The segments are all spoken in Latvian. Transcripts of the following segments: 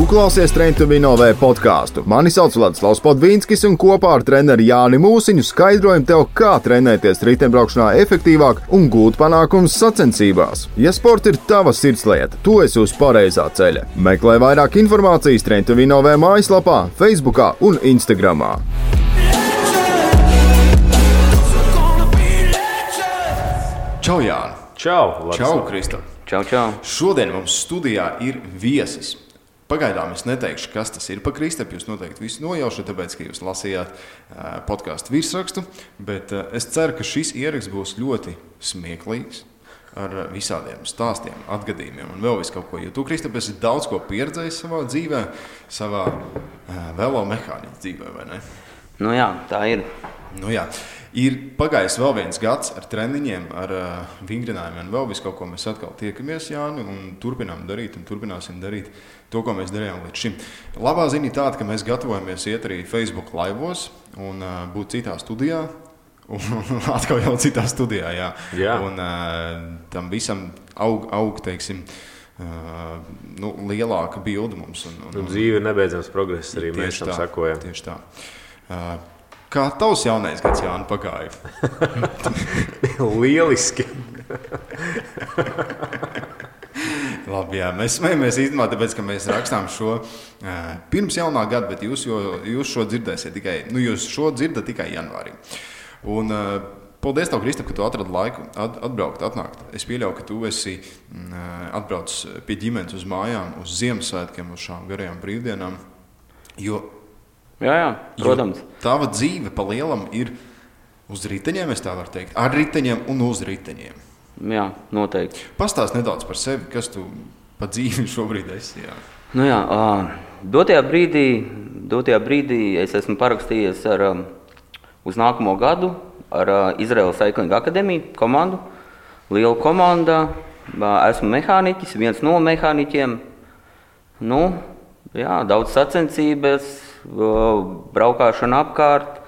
klausies Train to Win OV podcastu. Mani sauc Vladislavs Podvīnskis un kopā ar treneri Jāni Mūsiņu skaidrojam tev, kā trenēties riteņbraukšanā efektīvāk un gūt panākumus sacensībās. Ja sports ir tava sirdslieta, tu esi uz pareizā ceļa. Meklē vairāk informācijas Train to Win OV mājaslapā, Facebookā un Instagramā. Čau, Jāni! Čau, Čau, Kristap! Čau, čau! Šodien mums studijā ir viesis. Pagaidām es neteikšu, kas tas ir pa Kristapu. Jūs noteikti visu nojaušat, tāpēc, ka jūs lasījāt podcastu virsrakstu. Bet es ceru, ka šis ieraksts būs ļoti smieklīgs ar visādiem stāstiem, atgadījumiem un vēl visu kaut ko. Jo tu, Kristap, esi daudz ko pieredzējis savā dzīvē, savā velomehāniķa dzīvē, vai ne? Nu jā, tā ir. Nu jā. Ir pagājis vēl viens gads ar treniņiem, ar vingrinājumiem un vēl visu kaut ko. Mēs atkal tiekamies, Jāni, un turpinām darīt un turpināsim darīt to, ko mēs darījām līdz šim. Labā ziņa tāda, ka mēs gatavojamies iet arī Facebook laivos un būt citā studijā. Un atkal jau citā studijā, jā. Jā. Un tam visam aug teiksim, lielāka bilde mums. Un dzīve ir nebeidzams progress, arī mēs tam sakojam. Tieši tā. Kā tavs jaunais gads, Jāni, pagāja? Lieliski! Labi, jā, mēs smejamies īstenībā, tāpēc, ka mēs rakstām šo pirms jaunā gada, bet jūs šo dzirdēsiet tikai, jūs šo dzirdat tikai janvārī. Un paldies tev, Kristap, ka tu atradi laiku atbraukt, atnākt. Es pieļauju, ka tu esi atbraucis pie ģimenes uz mājām, uz Ziemassvētkiem, uz šām garajām brīvdienām, jo Jā, protams. Tava dzīve pa lielam ir uz riteņiem, es tā varu teikt, ar riteņiem un uz riteņiem. Jā, noteikti. Pastāst nedaudz par sevi, kas tu pa dzīvi šobrīd esi. Jā. Nu jā, dotajā brīdī es esmu parakstījies uz nākamo gadu ar Izraēlas Cycling Akadēmiju komandu. Liela komanda, esmu mehāniķis, viens no mehāniķiem. Nu, jā, daudz sacensības, braukāšana apkārt,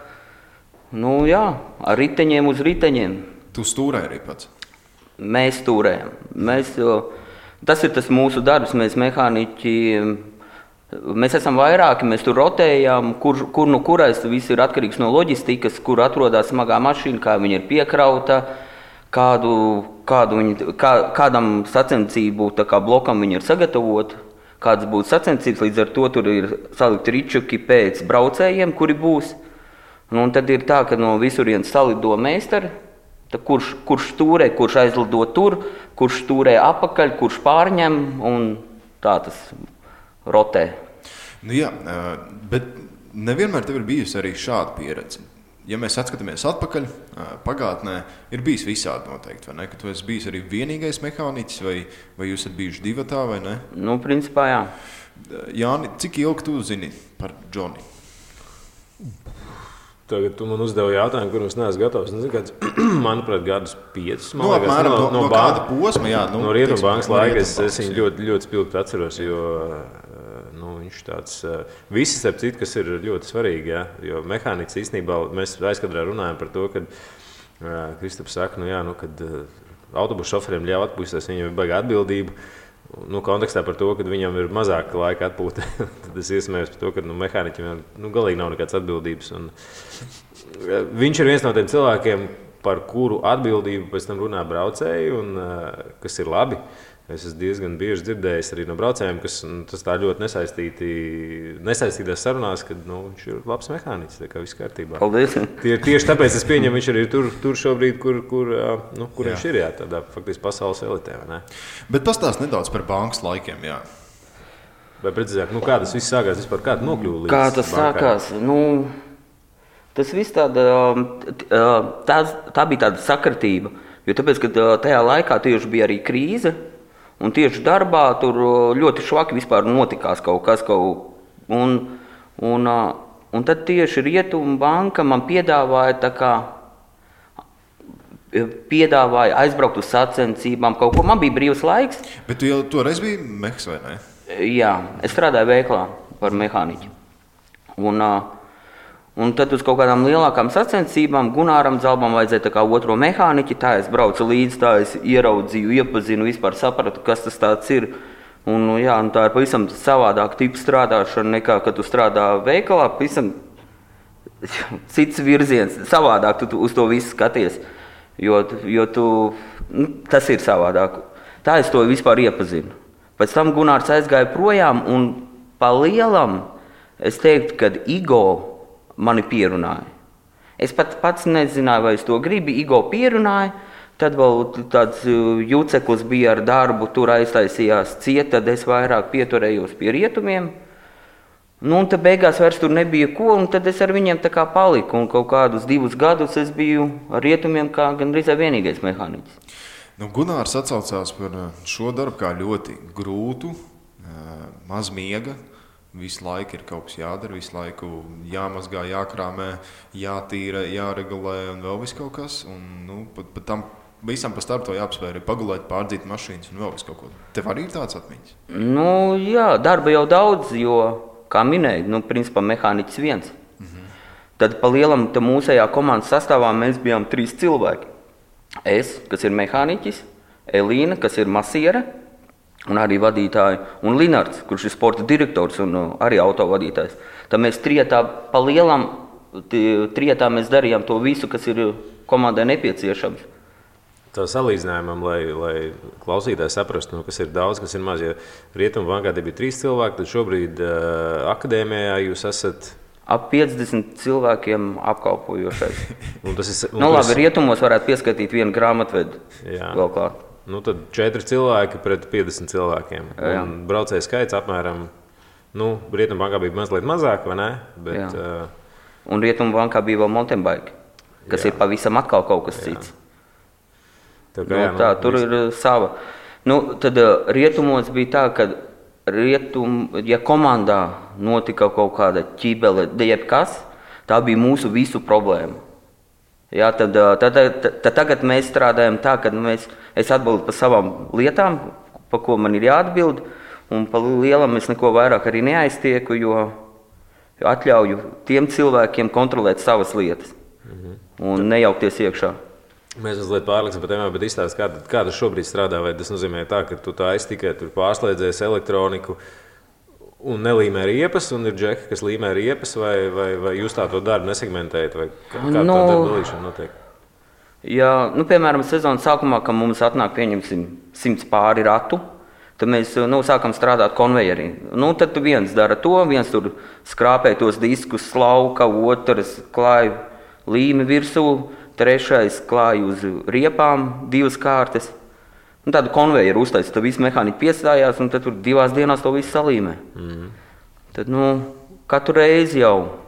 ar riteņiem uz riteņiem. Tu stūrē arī pats? Mēs stūrējam. Tas ir tas mūsu darbs, mēs mehāniķi, mēs esam vairāki, mēs tur rotējam, kur nu kurais, viss ir atkarīgs no loģistikas, kur atrodas smagā mašīna, kā viņa ir piekrauta, kādam sacensību blokam viņa ir sagatavota. Kādas būtu sacensības, līdz ar to tur ir salikti ričuki pēc braucējiem, kuri būs. Un tad ir tā, ka no visurienes salido meistari, kurš stūrē, kurš aizlido tur, kurš stūrē apakaļ, kurš pārņem, un tā tas rotē. Nu jā, bet nevienmēr tev ir bijusi arī šāda pieredze. Ja mēs atskatāmies atpakaļ, pagātnē ir bijis visādi noteikti, vai ne? Ka tu esi bijis arī vienīgais mehāniķis, vai jūs esat bijuši divatā, vai ne? Nu, principā, jā. Jāni, cik ilgi tu zini par Džoni? Tagad tu man uzdevi jautājumu, kur es neesmu gatavs. Manuprāt, gadus 5. Nu, apmēram no kāda posma, jā. No Rietumbankas laika es viņu ļoti, ļoti spilgti atceros, jo viņš tāds, visi starp citu, kas ir ļoti svarīgi, jā, jo mehāniķis īstenībā, mēs aizkadrā runājam par to, kad Kristaps saka, kad autobusu šoferiem ļauj atpūsties, viņam ir baigā atbildība, kontekstā par to, ka viņam ir mazāk laika atpūta, tad es iesmējos par to, ka mehāniķim galīgi nav nekāds atbildības. Un viņš ir viens no tiem cilvēkiem, par kuru atbildību pēc tam runā braucēji, un kas ir labi. Es esmu diezgan bieži dzirdējis arī no braucējiem, kas tas tā ļoti nesaistītās sarunās, ka viņš ir labs mehāniķis, tā kā viss kārtībā. Paldies! Tieši tāpēc es pieņemu, viņš arī tur šobrīd, kur viņš ir, jā, tādā faktiski pasaules elitē, vai ne? Bet pastāst nedaudz par bankas laikiem, jā. Vai precīzāk, kā tas viss sākās vispār, kā tu nokļuvi līdz Kā tas sākās? Tas viss tā bija tāda sakritība, jo tāpēc, ka tajā laikā tieši bija arī krīze, un tieši darbā tur ļoti švaki vispār notikās kaut kas. Un tad tieši Rietumbanka man piedāvāja aizbraukt uz sacensībām kaut ko. Man bija brīvs laiks. Bet tu jau toreiz biji mehs, vai ne? Jā, es strādāju veiklā par mehāniķi. Un tad uz kaut kādām lielākām sacensībām Gunāram Zalbam vajadzēja tā kā otro mehāniķi, tā es braucu līdzi, tā es ieraudzīju, iepazinu, vispār sapratu, kas tas tāds ir. Un, jā, un tā ir pavisam savādāka tipa strādāšana nekā, kad tu strādā veikalā. Pavisam cits virziens, savādāk tu uz to visu skaties, jo tu, tas ir savādāk. Tā es to vispār iepazinu. Pēc tam Gunārs aizgāja projām un pa lielam es teiktu, ka Igo mani pierunāja. Es pats nezināju, vai es to gribu, Igo pierunāja. Tad vēl tāds juceklis bija ar darbu, tur aiztaisījās ciet, tad es vairāk pieturējos pie rietumiem. Nu, un tad beigās vairs tur nebija ko, un tad es ar viņiem tā kā paliku. Un kaut kādus 2 gadus es biju ar rietumiem kā gandrīz vienīgais mehāniķis. Nu, Gunārs atsaucās par šo darbu kā ļoti grūtu, maz miega. Visu laiku ir kaut kas jādara, visu laiku jāmazgā, jākrāmē, jātīra, jāregulē un vēl viss kaut kas. Un, nu, pat tam visam pa starp to jāapspēr, pagulēt, pārdzīt mašīnas un vēl viss kaut ko. Tev arī ir tāds atmiņas? Nu, jā, darba jau daudz, jo, kā minēju, principā mehāniķis viens. Tad pa lielam mūsējā komandas sastāvā mēs bijām 3 cilvēki. Es, kas ir mehāniķis, Elīna, kas ir masiere, un arī vadītāji, un Linards, kurš ir sporta direktors un arī autovadītājs. Tad mēs trietā pa lielam, trietā mēs darījām to visu, kas ir komandai nepieciešams. Tā salīdzinājumam, lai klausītājs saprastu, kas ir daudz, kas ir maz. Ja Rietumu bankā bija 3 cilvēki, tad šobrīd akadēmijā jūs esat ap 50 cilvēkiem apkalpojošais. Labi, rietumos varētu pieskaitīt vienu grāmatvedu. Vēl klāt. Tad 4 cilvēki pret 50 cilvēkiem. Un braucēju skaits apmēram, Rietumu bankā bija mazliet mazāk, vai ne? Bet, un Rietumu bankā bija vēl mountain bike, kas ir pavisam atkal kaut kas cits. Tur ir sava. Tad rietumos bija tā, ka ja komandā notika kaut kāda ķībele, jebkas, tā bija mūsu visu problēma. Jā, tad tagad mēs strādājam tā, ka es atbildu par savām lietām, pa ko man ir jāatbild, un pa lielam es neko vairāk arī neaiztieku, jo atļauju tiem cilvēkiem kontrolēt savas lietas un nejaukties iekšā. Mēs mazliet pārliksim par tēmām, bet izstāst, kā tas šobrīd strādā, vai tas nozīmē tā, ka tu tā tikai tur pārslēdzies elektroniku un nelīmē riepas, un ir džeki, kas līmē riepas, vai jūs tā to darbu nesegmentējat, vai kā tā darba dalīšana notiek? Jā, piemēram, sezonas sākumā, kad mums atnāk, pieņemsim, 100 pāri ratu, tad mēs sākam strādāt konvejerī. Tad viens dara to, viens tur skrāpē tos diskus, slauka, otrs klāj līmi virsū, trešais klāj uz riepām 2 kārtas. Tādu konvejeru uztaisa, tad visi mehāniķi piestājās, un tad tur 2 dienās to visu salīmē. Tad, katru reizi jau,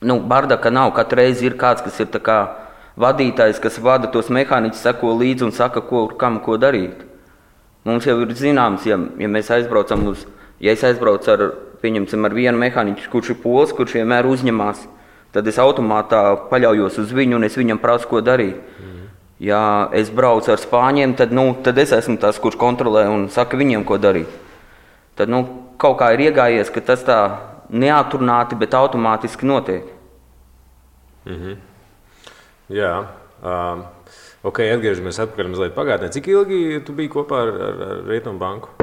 bardaka nav, katru reizi ir kāds, kas ir tā kā vadītājs, kas vada tos mehāniķus, seko līdzi un saka, kam ko darīt. Mums jau ir zināms, ja mēs aizbraucam ja es aizbraucu ar vienu mehāniķu, kurš ir pols, kurš vienmēr uzņemās, tad es automātā paļaujos uz viņu un es viņam prasu, ko darīt. Ja es braucu ar spāņiem, tad es esmu tas, kurš kontrolē un saka viņiem, ko darīt. Tad kaut kā ir iegājies, ka tas tā neatrunāti, bet automātiski notiek. Jā. Atgriežamies atpakaļ mazliet pagātnē. Cik ilgi tu biji kopā ar Rietumu banku?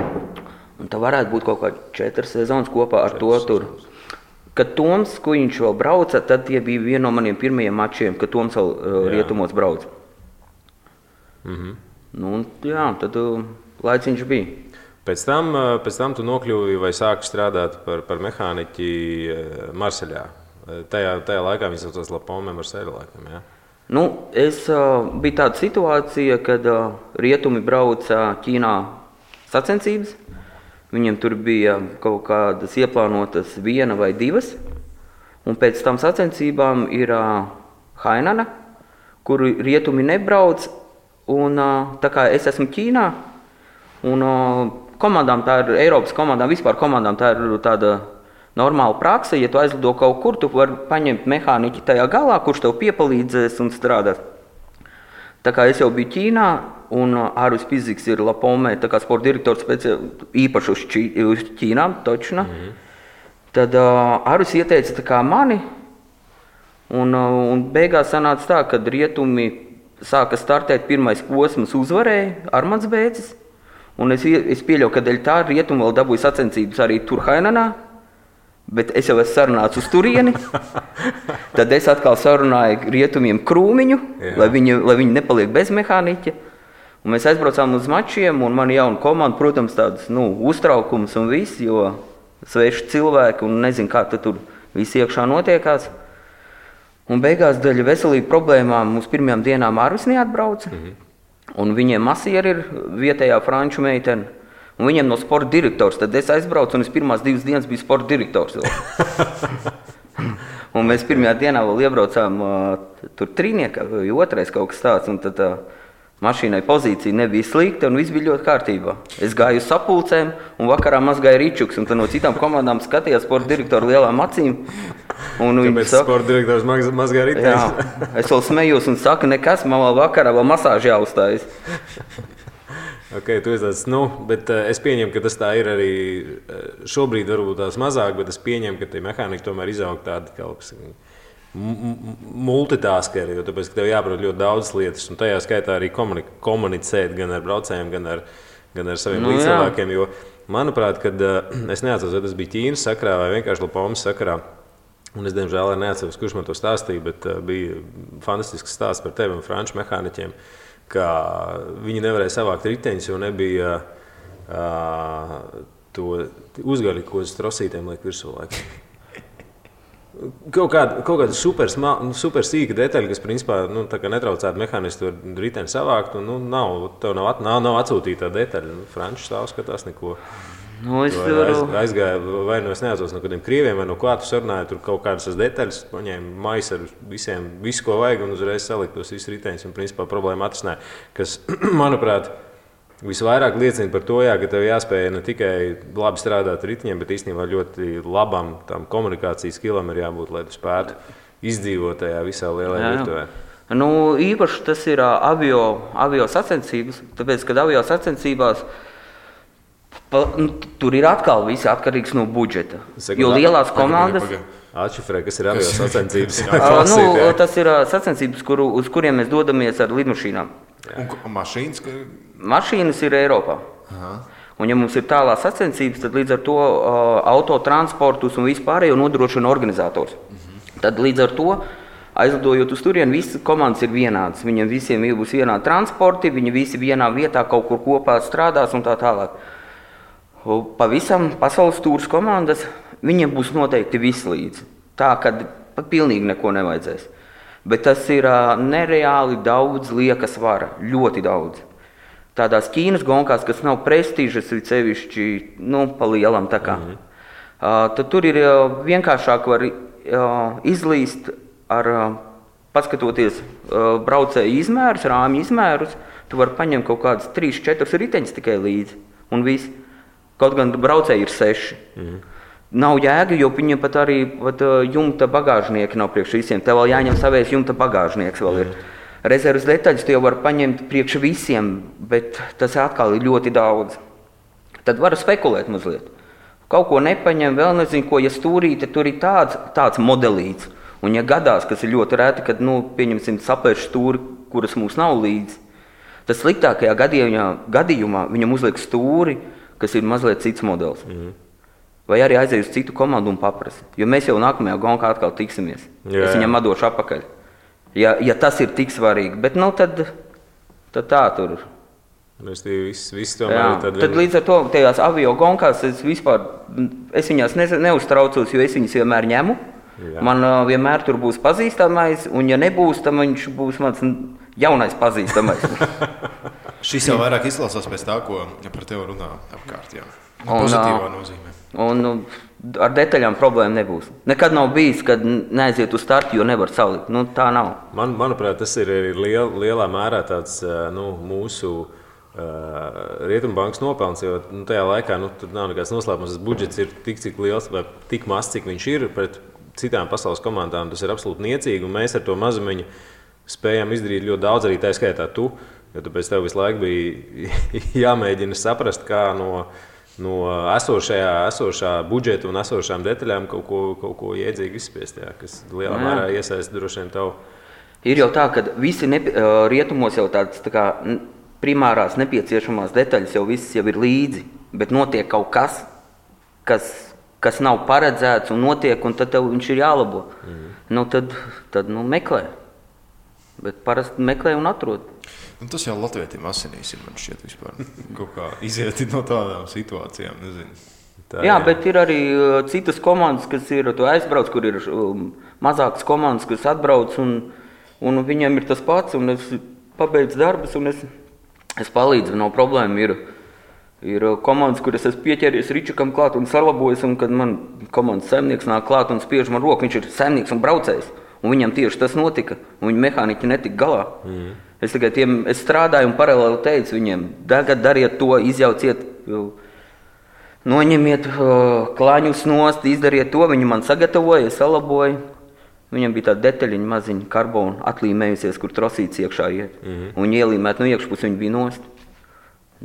Un tā varētu būt kaut kā 4 sezonas kopā ar to tur. Kad Toms Kujiņš vēl brauca, tad tie bija viena no maniem pirmajiem mačiem, kad Toms vēl rietumos brauca. Tad laiciņš bija. Pēc tam tu nokļuvi vai sāki strādāt par mehāniķi Marseļā. Tajā laikā viņi saucās La Pomme Marseļa laikam, jā? Bija tāda situācija, kad rietumi brauca Ķīnā sacensības. Viņiem tur bija kaut kādas ieplānotas 1 vai 2, un pēc tam sacensībām ir Hainana, kur rietumi nebrauc, un tā kā es esmu Ķīnā, un komandām tā ir, Eiropas komandām, vispār komandām tā ir tāda normāla prakse, ja tu aizlido kaut kur, tu vari paņemt mehāniķi tajā galā, kurš tev piepalīdzēs un strādās. Tā kā es jau biju Ķīnā, un Ārvis Piziks ir La Pomme, tā kā sporta direktors īpaši uz Ķīnām, točna. Tad Ārvis ieteica tā kā mani, un beigās sanāca tā, kad rietumi sāka startēt, pirmais posms uzvarēja Armands Bēcis, Un es pieļauju, ka dēļ tā rietumu vēl dabūju sacensības arī Turhainenā, bet es jau esmu sarunāts uz turieni. Tad es atkal sarunāju rietumiem Krūmiņu, lai viņi nepaliek bez mehāniķa. Un mēs aizbraucām uz mačiem, un man jauna komanda, protams, tāds uztraukums un viss, jo sveši cilvēki un nezinu, kā tur viss iekšā notiekās. Un beigās dēļ veselību problēmām mums pirmajām dienām Arvis neatbrauca. Un viņiem masieri ir vietējā franču meitene. Un viņiem no sporta direktors. Tad es aizbraucu un es pirmās 2 dienas biju sporta direktors. Un mēs pirmajā dienā vēl iebraucām tur trīniekā, vai otrais kaut kas tāds. Un tad mašīnai pozīcija nebija slikta un viss bija ļoti kārtībā. Es gāju uz sapulcēm un vakarā mazgāju ričuks. Un tad no citām komandām skatījās sporta direktoru lielām acīm. Kāpēc sporta direktors mazgāja riteņus? Jā, es vēl smējos un saku, nekas, man vēl vakarā vēl masāži jāuzstājas. Ok, tu esi bet es pieņemu, ka tas tā ir arī šobrīd varbūt tās mazāk, bet es pieņemu, ka tie mehāniķi tomēr izaug tādi kaut multitaskeri, jo tāpēc, ka tev jāprot ļoti daudzas lietas, un tajā skaitā arī komunicēt gan ar braucējiem, gan ar saviem līdzcilvēkiem, jo, manuprāt, kad es neatceros, vai tas bija Ķīnas sakarā vai vienkārši Lapomas sakarā, un es, diemžēl, neatceros, kurš man to stāstīja, bet bija fantastisks stāsts par tevi un franču mehāniķiem, ka viņi nevarēja savākt riteņus, jo nebija to uzgaļu, ko uz trosītēm liek virsū laikam. Kaut kāda super sīka detaļa, kas principā netraucētu mehānistu riteni savākt, un tev nav atsūtīta tā detaļa. Franču stāv skatās neko. Aizgāja, vai es neatceros no kādiem krieviem, vai no kā tu sarunāji, tur kaut kādas detaļas, paņēma maisu ar visiem, visu, ko vajag, un uzreiz salikt tos visus riteņus, un principā problēma atrisināja, kas, manuprāt, visvairāk liecina par to, ka tev jāspēj ne tikai labi strādāt ar riteņiem, bet īstenībā ļoti labam tam komunikācijas skilam ir jābūt, lai tu spētu izdzīvot tajā visā lielajā virtuvē. Īpaši tas ir avio sacensības, tāpēc, kad avio sacensībās tur ir atkal viss atkarīgs no budžeta. Jo lielās komandas... Atšifrē, kas ir avio sacensības? Tas ir sacensības, uz kuriem mēs dodamies ar lidmašīnām. Un mašīnas? Mašīnas ir Eiropā. Aha. Un ja mums ir tālās sacensības, tad līdz ar to autotransportus un vispārējo nodrošina organizators. Tad līdz ar to, aizlidojot uz turieni, visas komandas ir vienādas. Viņiem visiem būs vienādi transporti, viņi visi vienā vietā kaut kur kopā strādās un tā tālāk. Pavisam pasaules tūras komandas, viņiem būs noteikti viss līdzi. Tā, kad pilnīgi neko nevajadzēs. Bet tas ir nereāli daudz lieka svara, ļoti daudz. Tādās Ķīnas gonkās, kas nav prestižas, ir sevišķi, pa lielam tā kā. Tad tur ir vienkāršāk var izlīst ar, paskatoties braucēju izmērus, rāmju izmērus, tu vari paņemt kaut kādas 3-4 riteņus tikai līdzi un viss. Kaut gan braucēji ir 6. Nav jēga, jo viņiem pat arī jumta bagāžnieki nav priekš visiem. Tev vēl jāņem savējs jumta bagāžnieks vēl ir. Rezervas detaļas tu jau var paņemt priekš visiem, bet tas atkal ir ļoti daudz. Tad varu spekulēt mazliet. Kaut ko nepaņem, vēl nezinu, ko, ja stūrīte, tur ir tāds modelīts. Un ja gadās, kas ir ļoti reti, kad, pieņemsim, sapērš stūri, kuras mums nav līdzi, tad sliktākajā gadījumā viņam uzliek stūri, kas ir mazliet cits modelis. Vai arī aiziet uz citu komandu un paprasa. Jo mēs jau nākamajā gonkā atkal tiksimies. Es viņam atdošu apakaļ. Ja tas ir tik svarīgi. Bet tad tā tur. Viss tomēr ir tad līdz ar to tajās avio gonkās es viņās neuztraucos, jo es viņas vienmēr ņemu. Jā. Man vienmēr tur būs pazīstamais, un ja nebūs, tad viņš būs mans jaunais pazīstamais. Šis jau vairāk izklausās pēc tā, ko par tevi runā apkārt. Jā. Pozitīvā nozīmē. Un ar detaļām problēma nebūs. Nekad nav bijis, kad neaiziet uz startu, jo nevar salikt. Tā nav. Manuprāt, tas ir lielā mērā tāds mūsu Rietumbankas nopelns, jo tajā laikā tur nav nekāds noslēpums. Tas budžets ir tik, cik liels vai tik maz, cik viņš ir pret citām pasaules komandām. Tas ir absolūti niecīgi, un mēs ar to mazumiņu spējām izdarīt ļoti daudz, arī tā skaitā tu. Jo tāpēc tev visu laiku bija jāmēģina saprast, kā no esošā budžeta un esošām detaļām kaut ko iedzīgi izspiest, kas lielā mērā iesaista droši vien tavu. Ir jau tā, ka visi rietumos jau tāds tā kā primārās nepieciešamās detaļas jau viss jau ir līdzi, bet notiek kaut kas, kas nav paredzēts un notiek, un tad tev viņš ir jālabo. Tad meklē. Bet parasti meklē un atrod. Tas jau latvietim asinīs ir, man šķiet, vispār kaut kā iziet no tādām situācijām, nezinu. Jā, bet ir arī citas komandas, kas ir aizbrauc, kur ir mazākas komandas, kas atbrauc, un viņiem ir tas pats, un es pabeidzu darbus, un es palīdzu, nav problēma. Ir komandas, kur es esmu pieķēries Ričukam klāt un salabojis, un kad man komandas saimnieks nāk klāt un spiež man roku, viņš ir saimnieks un braucējs, un viņam tieši tas notika, un viņa mehāniķi netika galā. Es strādāju un paralēli teicu viņiem, tagad dariet to, izjauciet, noņemiet klaņus nost, izdariet to, viņi man sagatavoja, salaboja. Viņam bija tāda detaļiņa maziņa karbona atlīmējusies, kur trosīts iekšā iet. Un ielīmēt no iekšpus viņi bija nost.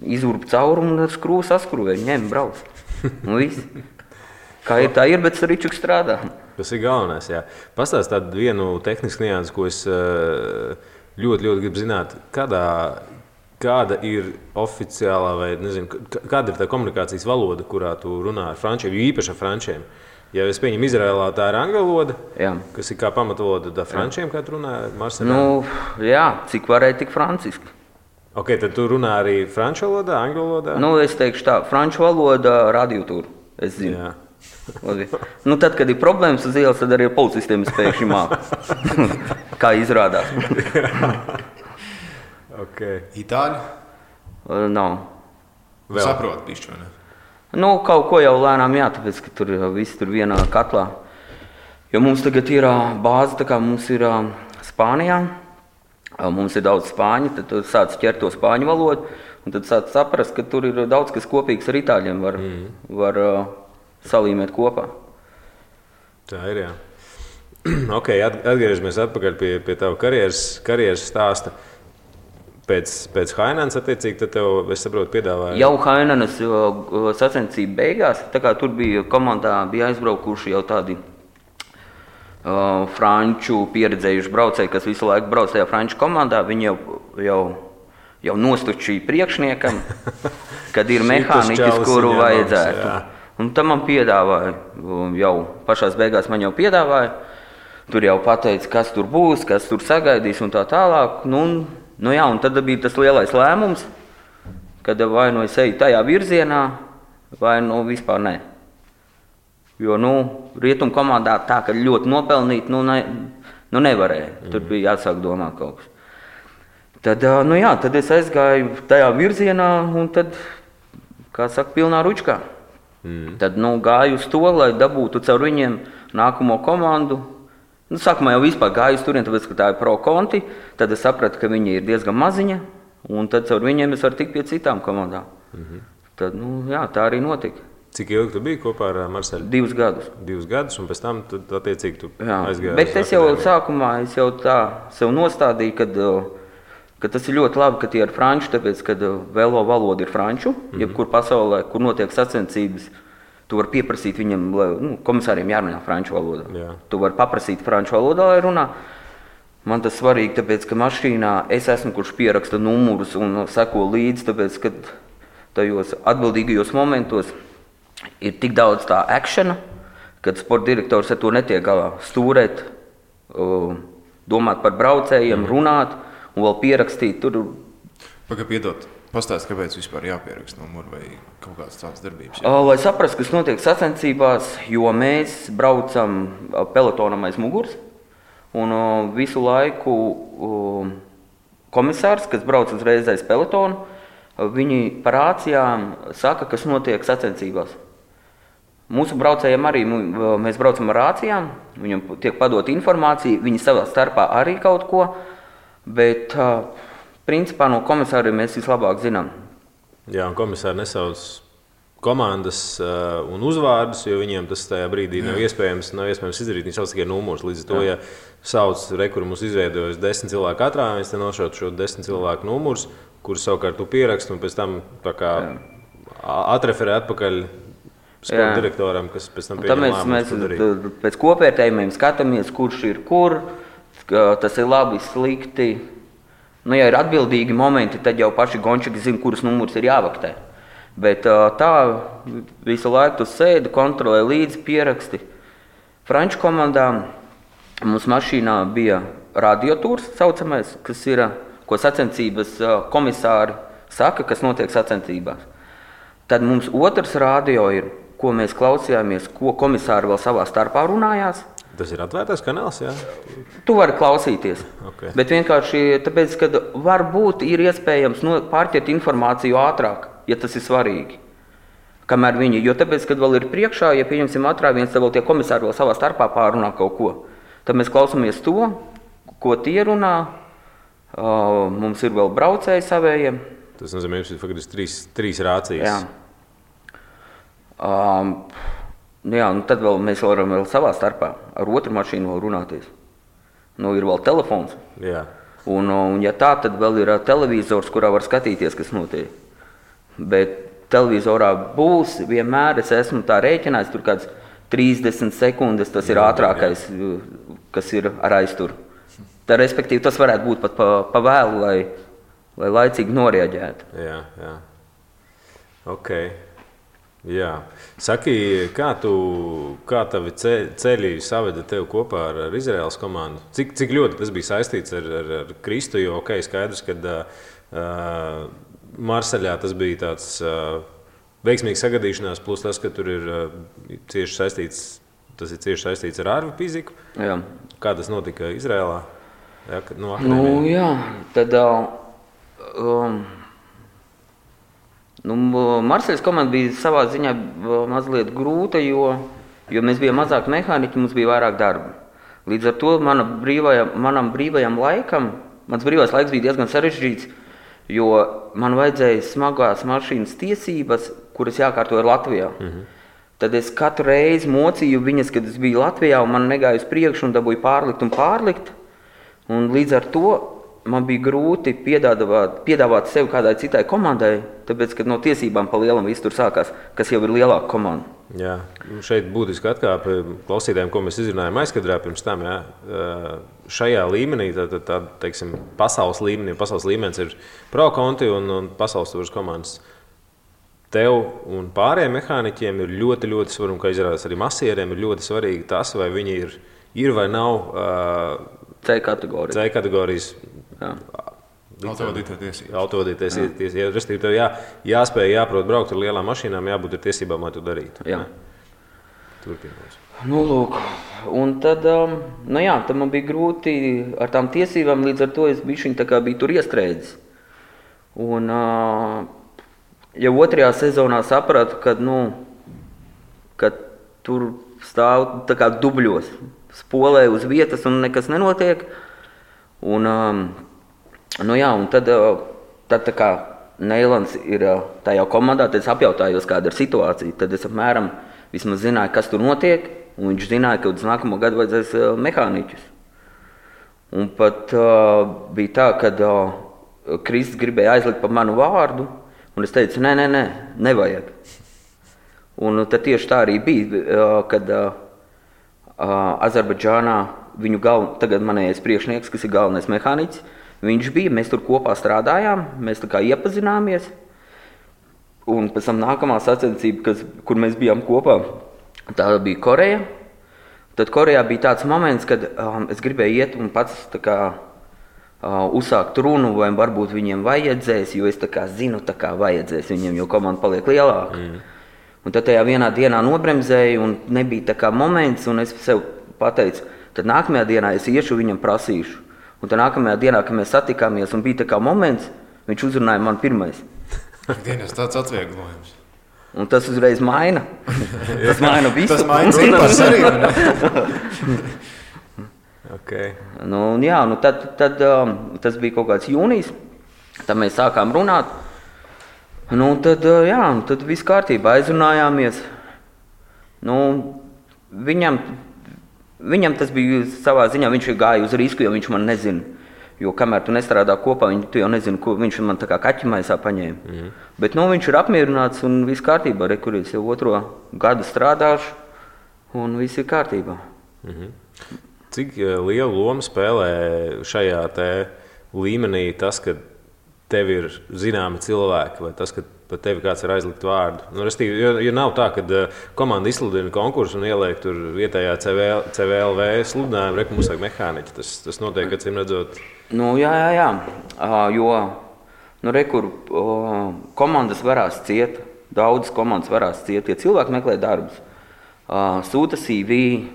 Izurba caurumu un ar skrūvu saskrūvēja, ņem, brauc. Un viss. Kā ir tā ir, bet Ričuks strādā. Tas ir galvenais, jā. Pastāst tādu vienu tehnisku niansu, ko es ļoti gribu zināt. Kāda ir oficiālā vai, nezinu, kāda ir tā komunikācijas valoda, kurā tu runā ar frančiem, jo īpaši ar frančiem? Ja es pieņemu Izrēlā, tā ir angļu valoda, kas ir kā pamatvaloda frančiem, kā tu runā Marselā? Jā, cik varēja, tik franciski. Ok, tad tu runā arī franču valodā, angļu valodā? Es teikšu tā, franču valoda radiotūra, es zinu. Jā. Tad, kad ir problēmas uz ielas, tad arī policistiem spēkšņi māk. Kā izrādās. Okay. Itāļu? Nav. Saprot bišķi, vai ne? Kaut ko jau lēnām tāpēc, ka tur viss tur vienā katlā. Jo mums tagad ir bāze, tā kā mums ir Spānijā. Mums ir daudz spāņu, tad tu sāc ķert to spāņu valodu, un tad sāc saprast, ka tur ir daudz kas kopīgs ar itāļiem, var salīmēt kopā. Tā ir, jā. Ok, atgriežamies atpakaļ pie tava karjeras stāsta. Pēc Hainans, attiecīgi, tad tev, es saprotu, piedāvāja... Jau Hainanas sacensību beigās, tā kā tur bija komandā, bija aizbraukuši jau tādi franču pieredzējuši braucēji, kas visu laiku brauc tajā franču komandā, viņi jau nostučīja priekšniekam, kad ir mehāniķis, kuru vajadzētu. Un tam man piedāvāja, jau pašās beigās man jau piedāvāja, tur jau pateica, kas tur būs, kas tur sagaidīs un tā tālāk. Un tad bija tas lielais lēmums, kad vai es eju tajā virzienā, vai vispār ne. Jo, rietumu komandā tā, ka ļoti nopelnīt, nevarēja. Tur bija jāsāk domāt kaut kas. Tad, tad es aizgāju tajā virzienā un tad, kā saka, pilnā ručkā. Tad, gāju uz to, lai dabūtu caur viņiem nākamo komandu. Sākumā jau vispār gāju uz turien, tāpēc, ka tā ir pro konti. Tad es sapratu, ka viņi ir diezgan maziņa, un tad caur viņiem es varu tikt pie citām komandām. Tad, tā arī notika. Cik ilgi tu biji kopā ar Marseļu? 2 gadus. 2 gadus, un pēc tam, attiecīgi, tu aizgāji. Bet es jau sākumā tā sev nostādīju, ka tas ir ļoti labi, ka tie ir franču, tāpēc, kad velo valoda ir franču, jebkur pasaulē, kur notiek sacensības, tu vari pieprasīt viņam, komisāriem jārunā franču valodā. Jā. Tu vari paprasīt franču valodā, lai runā. Man tas svarīgi, tāpēc, ka mašīnā es esmu, kurš pieraksta numurus un seko līdzi, tāpēc, ka tajos atbildīgajos momentos ir tik daudz tā akšana, kad sporta direktors ar to netiek galā. Stūrēt, domāt par braucējiem, runāt un vēl pierakstīt tur. Piedod, pastāst, kāpēc vispār jāpieraksta numuru vai kaut kādas tādas darbības? Lai saprastu, kas notiek sacensībās, jo mēs braucam pelotonam aiz muguras un visu laiku komisārs, kas brauc uzreiz aiz pelotonu, viņi par rācijām saka, kas notiek sacensībās. Mūsu braucējiem arī, mēs braucam ar rācijām, viņam tiek padot informācija, viņi savā starpā arī kaut ko, bet principā no komisāriem mēs vislabāk zinām. Jā, un komisāri nesauc komandas un uzvārdus, jo viņiem tas tajā brīdī nav iespējams izdarīt. Viņi sauc tikai numurus. Līdz ar to, ja sauc rekuru mums izveidojas 10 cilvēku katrā, mēs te nošautu šo 10 cilvēku numurus, kurus savukārt tu pieraksti un pēc tam atreferē atpakaļ sporta direktoram, kas pēc tam pieņem lēmumus. Mēs pēc kopvērtējumiem skatāmies, kurš ir kur, tas ir labi, slikti. Nu, ja ir atbildīgi momenti, tad jau paši gončiki zina, kurus numurus ir jāvaktē. Bet tā visu laiku tu sēdi, kontrolē līdzi pieraksti. Franču komandā mums mašīnā bija radiotūrs saucamais, kas ir, ko sacensības komisāri saka, kas notiek sacensībās. Tad mums otrs radio ir, ko mēs klausījāmies, ko komisāri vēl savā starpā runājās. Tas ir atvērtais kanāls, jā? Tu vari klausīties, Okay. bet vienkārši tāpēc, ka varbūt ir iespējams pārķert informāciju ātrāk, ja tas ir svarīgi. Kamēr viņi, jo tāpēc, kad vēl ir priekšā, ja pieņemsim atrāviens, tad vēl tie komisāri vēl savā starpā pārunā kaut ko. Tad mēs klausamies to, ko tie runā, mums ir vēl braucēji savējiem. Tas nozīmē, ka jums ir trīs rācijas. Jā, nu tad vēl mēs varam vēl savā starpā ar otru mašīnu vēl runāties. Nu, ir vēl telefons. Jā. Un ja tā, tad vēl ir televizors, kurā var skatīties, kas notiek. Bet televizorā būs vienmēr, es esmu tā rēķinājis, tur kāds 30 sekundes, tas ir ātrākais, kas ir ar aizturu. Tā, respektīvi, tas varētu būt pat pa vēlu, lai laicīgi noreaģētu. Jā. Ok. Jā. Saki, kā tavi ceļi saveda tev kopā ar Izraēlas komandu? Cik ļoti tas bija saistīts ar Kristu, jo skaidrs, ka Marseļā tas bija tāds veiksmīgs sagadīšanās, plus tas, ka tur ir cieši saistīts ar ārvu fiziku. Jā. Kā tas notika Izraēlā? Jā, tad Marseļas komanda bija savā ziņā mazliet grūta, jo mēs bijām mazāk mehāniķi, mums bija vairāk darba. Līdz ar to mans brīvais laiks bija diezgan sarežģīts, jo man vajadzēja smagās mašīnas tiesības, kuras jākārtoja Latvijā. Tad es katru reizi mocīju viņas, kad es biju Latvijā, un man negāja uz priekšu un dabūju pārlikt. Un līdz ar to man bija grūti piedāvāt sevi kādai citai komandai, tāpēc, ka no tiesībām pa lielam viss tur sākās, kas jau ir lielāka komanda. Jā, šeit būtiski atkāpe klausītājiem, ko mēs izrunājām aizkadrā pirms tam. Jā. Šajā līmenī, teiksim, pasaules līmenis ir Pro Conti un pasaules tūras komandas. Tev un pārējiem mehāniķiem ir ļoti, ļoti svarīgi, un kā izrādās arī masieriem, ir ļoti svarīgi tas, vai viņi ir vai nav C kategorijas. Autovadītāja tiesības. Restīvi, tev jāspēj, jāprot braukt ar lielām mašīnām, jābūt ar tiesībām, lai to darītu. Jā. Turpinās. Nu, lūk. Un tad, tad man bija grūti ar tām tiesībām, līdz ar to es biju tur iestrēdzis. Un jau otrajā sezonā sapratu, ka tur stāv tā kā dubļos, spolē uz vietas un nekas nenotiek. Un tad tā kā Neilans ir tajā komandā, tad es apjautājos, kāda ir situācija. Tad es apmēram vismaz zināju, kas tur notiek, un viņš zināja, ka uz nākamo gadu vajadzēs mehāniķus. Un pat bija tā, kad Kristis gribēja aizlikt pa manu vārdu, un es teicu, nevajag. Un tad tieši tā arī bija, kad Azerbaidžānā tagad manējais priekšnieks, kas ir galvenais mehāniķis, viņš bija, mēs tur kopā strādājām, mēs tā kā iepazināmies. Un pēc tam nākamā sacensība, kur mēs bijām kopā, tā bija Koreja. Tad Korejā bija tāds moments, kad es gribēju iet un pats tā kā uzsākt runu, vai varbūt viņiem vajadzēs, jo es tā kā zinu, tā kā vajadzēs viņiem, jo komanda paliek lielāka. Un tad tajā vienā dienā nobremzēju un nebija tā kā moments, un es sev pateicu, tad nākamajā dienā es iešu viņam prasīšu. Un tad nākamajā dienā, kad mēs satikāmies un bija tā kā moments, viņš uzrunāja man pirmais. Dienas tāds atvieglojums. Un tas uzreiz maina. Tas maina visu. Tas maina cipars arī. Okay. Tad tas bija kaut kāds jūnijas, tad mēs sākām runāt. Tad viss kārtībā, aizrunājāmies. Viņam tas bija savā ziņā, viņš gāja uz risku, jo viņš man nezina. Jo kamēr tu nestrādā kopā, tu jau nezini, ko viņš man tā kā kaķimaisā paņēma. Bet viņš ir apmierināts un viss kārtībā. Rekurīts jau 2. gadu strādāšu un viss ir kārtībā. Cik lielu lomu spēlē šajā līmenī tas, ka tev ir zināmi cilvēki, vai tas, ka par tevi kāds ir aizlikt vārdu. Nu, jo nav tā, ka komanda izsludina konkursu un ieliek tur vietējā CVLV sludinājumu, reku mums vajag mehāniķi. Tas notiek, acīm redzot. Nu, jā. Jo rekur komandas varās ciet, daudzas komandas varās ciet, ja cilvēki meklē darbus. Sūta CV,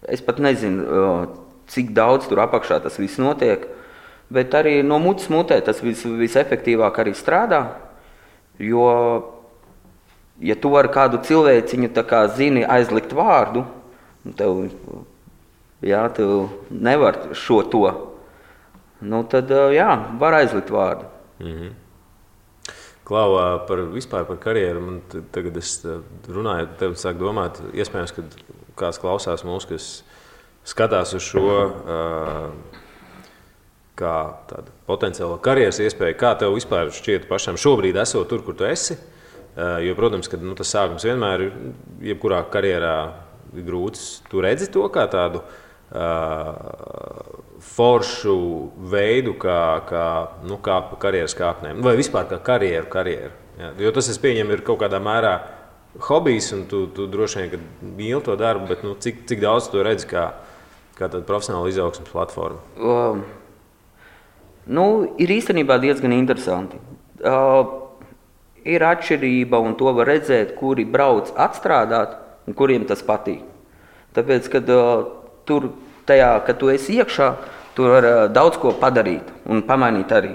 es pat nezinu, cik daudz tur apakšā tas viss notiek, bet arī no mutes mutē tas visefektīvāk arī strādā, jo, ja tu ar kādu cilvēciņu tā kā zini aizlikt vārdu, tev nevar šo to, tad var aizlikt vārdu. Mhm. Klau, vispār par karjeru, man tagad es runāju, tev sāk domāt, iespējams, ka kāds klausās mūs, kas skatās uz šo kā tādu potenciālo karjeras iespēju. Kā tev vispār šķiet pašam šobrīd esot tur, kur tu esi? Jo, protams, ka tas sākums vienmēr ir, jebkurā karjerā ir grūts. Tu redzi to kā tādu foršu veidu, kā pa karjeras kāpnēm, vai vispār kā karjeru. Jā. Jo tas, es pieņemu, ir kaut kādā mērā hobijs, un tu droši vien, ka mīli to darbu, bet cik daudz tu redzi kā tāda profesionāla izaugsmes platforma? Ir īstenībā diezgan interesanti. Ir atšķirība, un to var redzēt, kuri brauc atstrādāt, un kuriem tas patīk. Tāpēc, kad tur, kad tu esi iekšā, tur var daudz ko padarīt un pamainīt arī.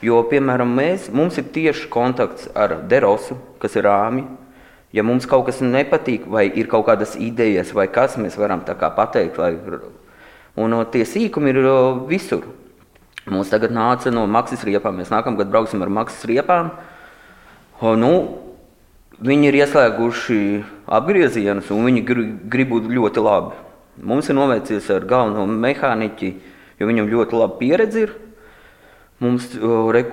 Jo, piemēram, mums ir tieši kontakts ar Derosu, kas ir Rāmi. Ja mums kaut kas nepatīk, vai ir kaut kādas idejas, vai kas, mēs varam tā kā pateikt. Un tie sīkumi ir visur. Mums tagad nāca no Maksis riepām. Mēs nākamgad brauksim ar Maksis riepām. Viņi ir ieslēguši apgriezienus, un viņi grib būt ļoti labi. Mums ir noveicies ar galveno mehāniķi, jo viņam ļoti laba pieredze ir. Mums,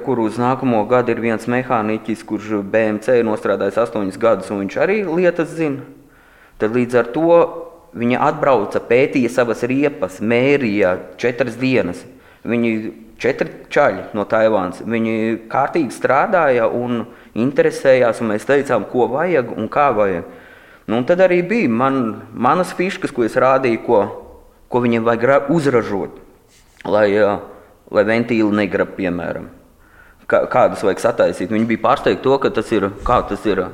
kur uz nākamo gadu ir viens mehāniķis, kurš BMC ir nostrādājis 8 gadus, un viņš arī lietas zina. Tad līdz ar to viņa atbrauca, pētīja savas riepas, mērīja 4 dienas. Viņi 4 čaļi no Taivānas. Viņi kārtīgi strādāja un interesējās, un mēs teicām, ko vajag un kā vajag. Un tad arī bija manas fiškas, ko es rādīju, ko viņiem vajag uzražot, lai ventīli negrab, piemēram. Kādus vajag sataisīt. Viņi bija pārsteigti to, ka tas ir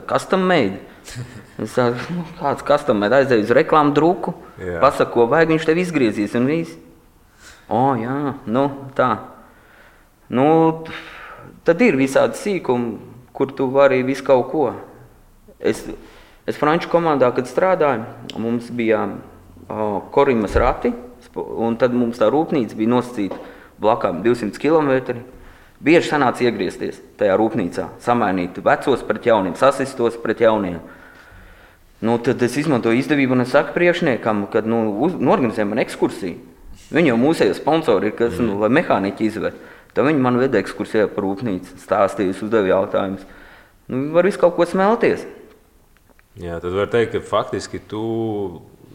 custom made. Es saku, kāds custom made, aizēju uz reklāmu druku, pasaka, ko vajag, viņš tev izgriezīs un viss. Jā, tā. Tad ir visādi sīkumi, kur tu vari visu kaut ko. Es franču komandā, kad strādāju, mums bija Korimas rati, un tad mums tā rūpnīca bija nosacīta blakām 200 km. Bieži sanāca iegriezties tajā rūpnīcā, samainīt vecos pret jauniem, sasistos pret jauniem. Tad es izmantoju izdevību un es saku priekšniekam, kad norganizēju man ekskursiju. Viņi jau mūsējo sponsori ir, kas lai mehāniķi izved. Tad viņi man veda ekskursijā par rūpnīcu, stāstījis, uzdeva jautājumus. Var visu kaut ko smelties. Jā, tad var teikt, ka faktiski tu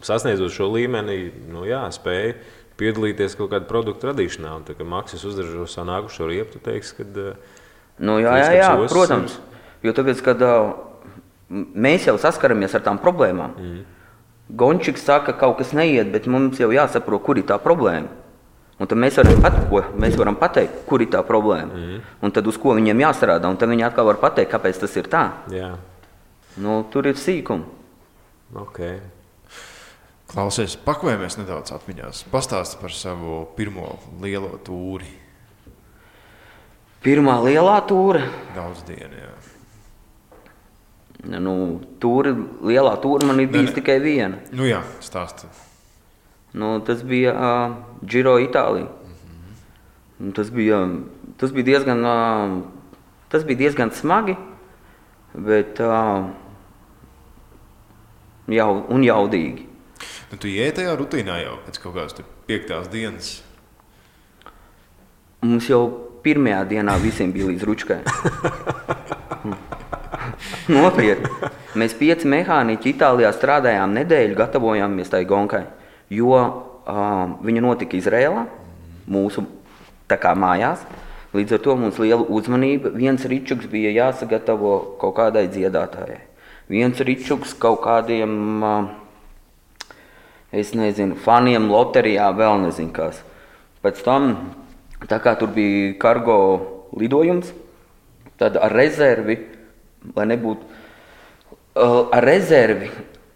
sasniedzot šo līmeni, spēji piedalīties kaut kādu produktu radīšanā. Un tā, ka Maksis uzražo savu nākušo riepu, tu teiksi, kad... Jā, protams. Jo tāpēc, kad mēs jau saskaramies ar tām problēmām. Gončiks saka, ka kaut kas neiet, bet mums jau jāsaprot, kur ir tā problēma. Un tad mēs varam pateikt, kur ir tā problēma. Un tad uz ko viņiem jāstrādā, un tad viņi atkal var pateikt, kāpēc tas ir tā. Jā. Tur ir sīkumi. Okay. Klausies, pakojamies nedaudz atmiņās. Pastāsti par savu pirmo lielo tūri. Pirmā lielā tūre? Daudz dienu, jā. Lielā tūre man ir bijis tikai viena. Jā, stāsti. Tas bija Giro Itālija. Tas bija diezgan smagi, bet jaudīgi. Tu iei tajā rutīnā jau pēc kaut kādas 5. dienas? Mums jau pirmajā dienā visiem bija līdz ručkai. Nopietni. Mēs 5 mehāniķi Itālijā strādājām nedēļu, gatavojāmies tai gonkai, jo viņa notika Izrēlā, mūsu tā kā mājās. Līdz ar to mums liela uzmanība. Viens ričuks bija jāsagatavo kaut kādai dziedātājai. Viens ričuks kaut kādiem, es nezinu, faniem loterijā, vēl nezinu kas. Pēc tam, tā kā tur bija kargo lidojums, tad ar rezervi,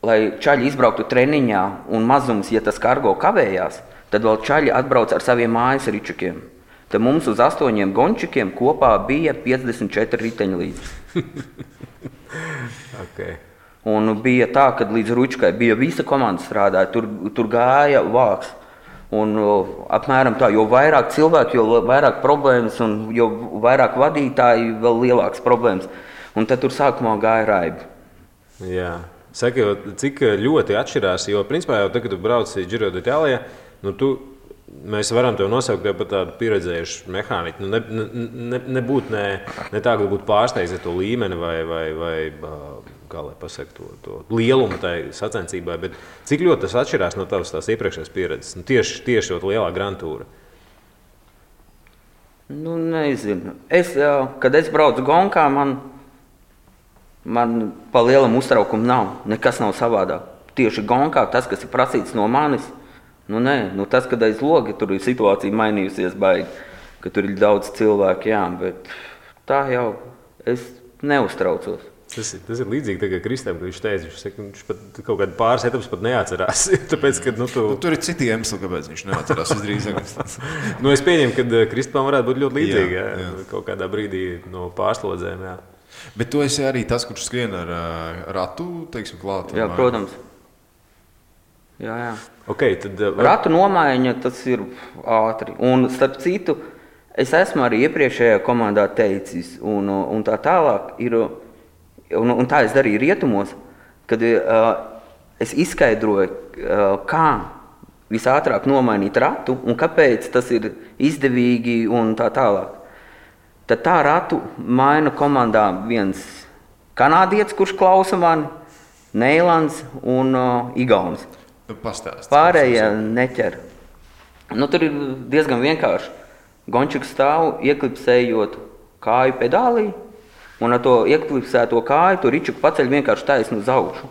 lai čaļi izbrauktu treniņā un mazums, ja tas kargo kavējās, tad vēl čaļi atbrauc ar saviem mājas ričukiem. Tad mums uz 8 gončikiem kopā bija 54 riteņi līdzi. Okay. Un bija tā, ka līdz ručkai bija visa komanda strādāja, tur gāja vāks. Un apmēram tā, jo vairāk cilvēku, jo vairāk problēmas, un jo vairāk vadītāji, vēl lielākas problēmas. Un tad tur sākumā gāja raibi. Jā. Saka, cik ļoti atšķirās, jo principā jau tagad, kad tu brauci Giro d'Italia, mēs varam tev nosaukt par tādu pieredzējušu mehāniķu. Nebūtu ne tā, ka būtu pārsteigts ar to līmeni vai kā lai pasaka to lielumu tai sacensībai, bet cik ļoti tas atšķirās no tavas tās iepriekšējās pieredzes? Tieši to lielā Grand Tour. Nezinu. Kad es braucu gonkā, man pa lielam uztraukumu nav. Nekas nav savādāk. Tieši gonkā tas, kas ir prasīts no manis, tas, kad aiz loga tur ir situācija mainījusies baigi, ka tur ir daudz cilvēku, jā, bet tā jau es neuztraucos. Tas ir līdzīgi tagad Kristam, ka viņš teica, viņš pat kaut kādu pāris etapus pat neatcerās. Tāpēc, ka, tur ir citi iemesli, kāpēc viņš neatcerās visdrīzāk. Es pieņemu, ka Kristam varētu būt ļoti līdzīgi, jā. Kaut kādā brīdī no pārslodzēm. Jā. Bet tu esi arī tas, kurš skrien ar ratu, teiksim, klāt? Jā, protams. Jā. Okay, tad, ratu nomaiņa, tas ir ātri. Un starp citu, es esmu arī iepriekšējā komandā teicis, un tā tālāk ir, un tā es darīju rietumos, kad es izskaidroju, kā visātrāk nomainīt ratu un kāpēc tas ir izdevīgi un tā tālāk. Tad tā ratu maina komandā viens kanādietis, kurš klausa mani, Neilands un Igaunis. Pastāst. Pārējie neķer. Tur ir diezgan vienkārši. Gončiks stāv, ieklipsējot kāju pedālī, un ar to ieklipsēto kāju tu ričuku paceļ vienkārši taisnu uz augšu.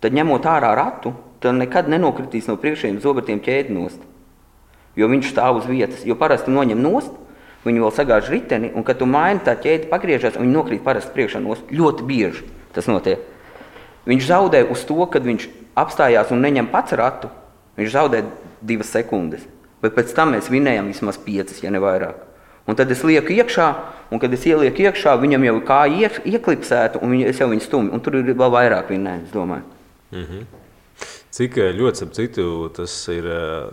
Tad ņemot ārā ratu, tad nekad nenokritīs no priekšējiem zobertiem ķēdi nost. Jo viņš stāv uz vietas. Jo parasti noņem nost, viņi vēl sagāž riteni, un kad tu maini, tā ķēde pagriežās, un viņi nokrīt parasti priekšā nost. Ļoti bieži tas notiek. Viņš zaudē uz to, kad viņš apstājās un neņem pats ratu, viņš zaudē 2 sekundes. Bet pēc tam mēs vinējam vismaz 5, ja ne vairāk. Un tad es lieku iekšā, un kad es ielieku iekšā, viņam jau kāja ieklipsētu, un es jau viņu stumju. Un tur ir vēl vairāk vinējums, domāju. Mm-hmm. Cik ļoti, ap citu, tas ir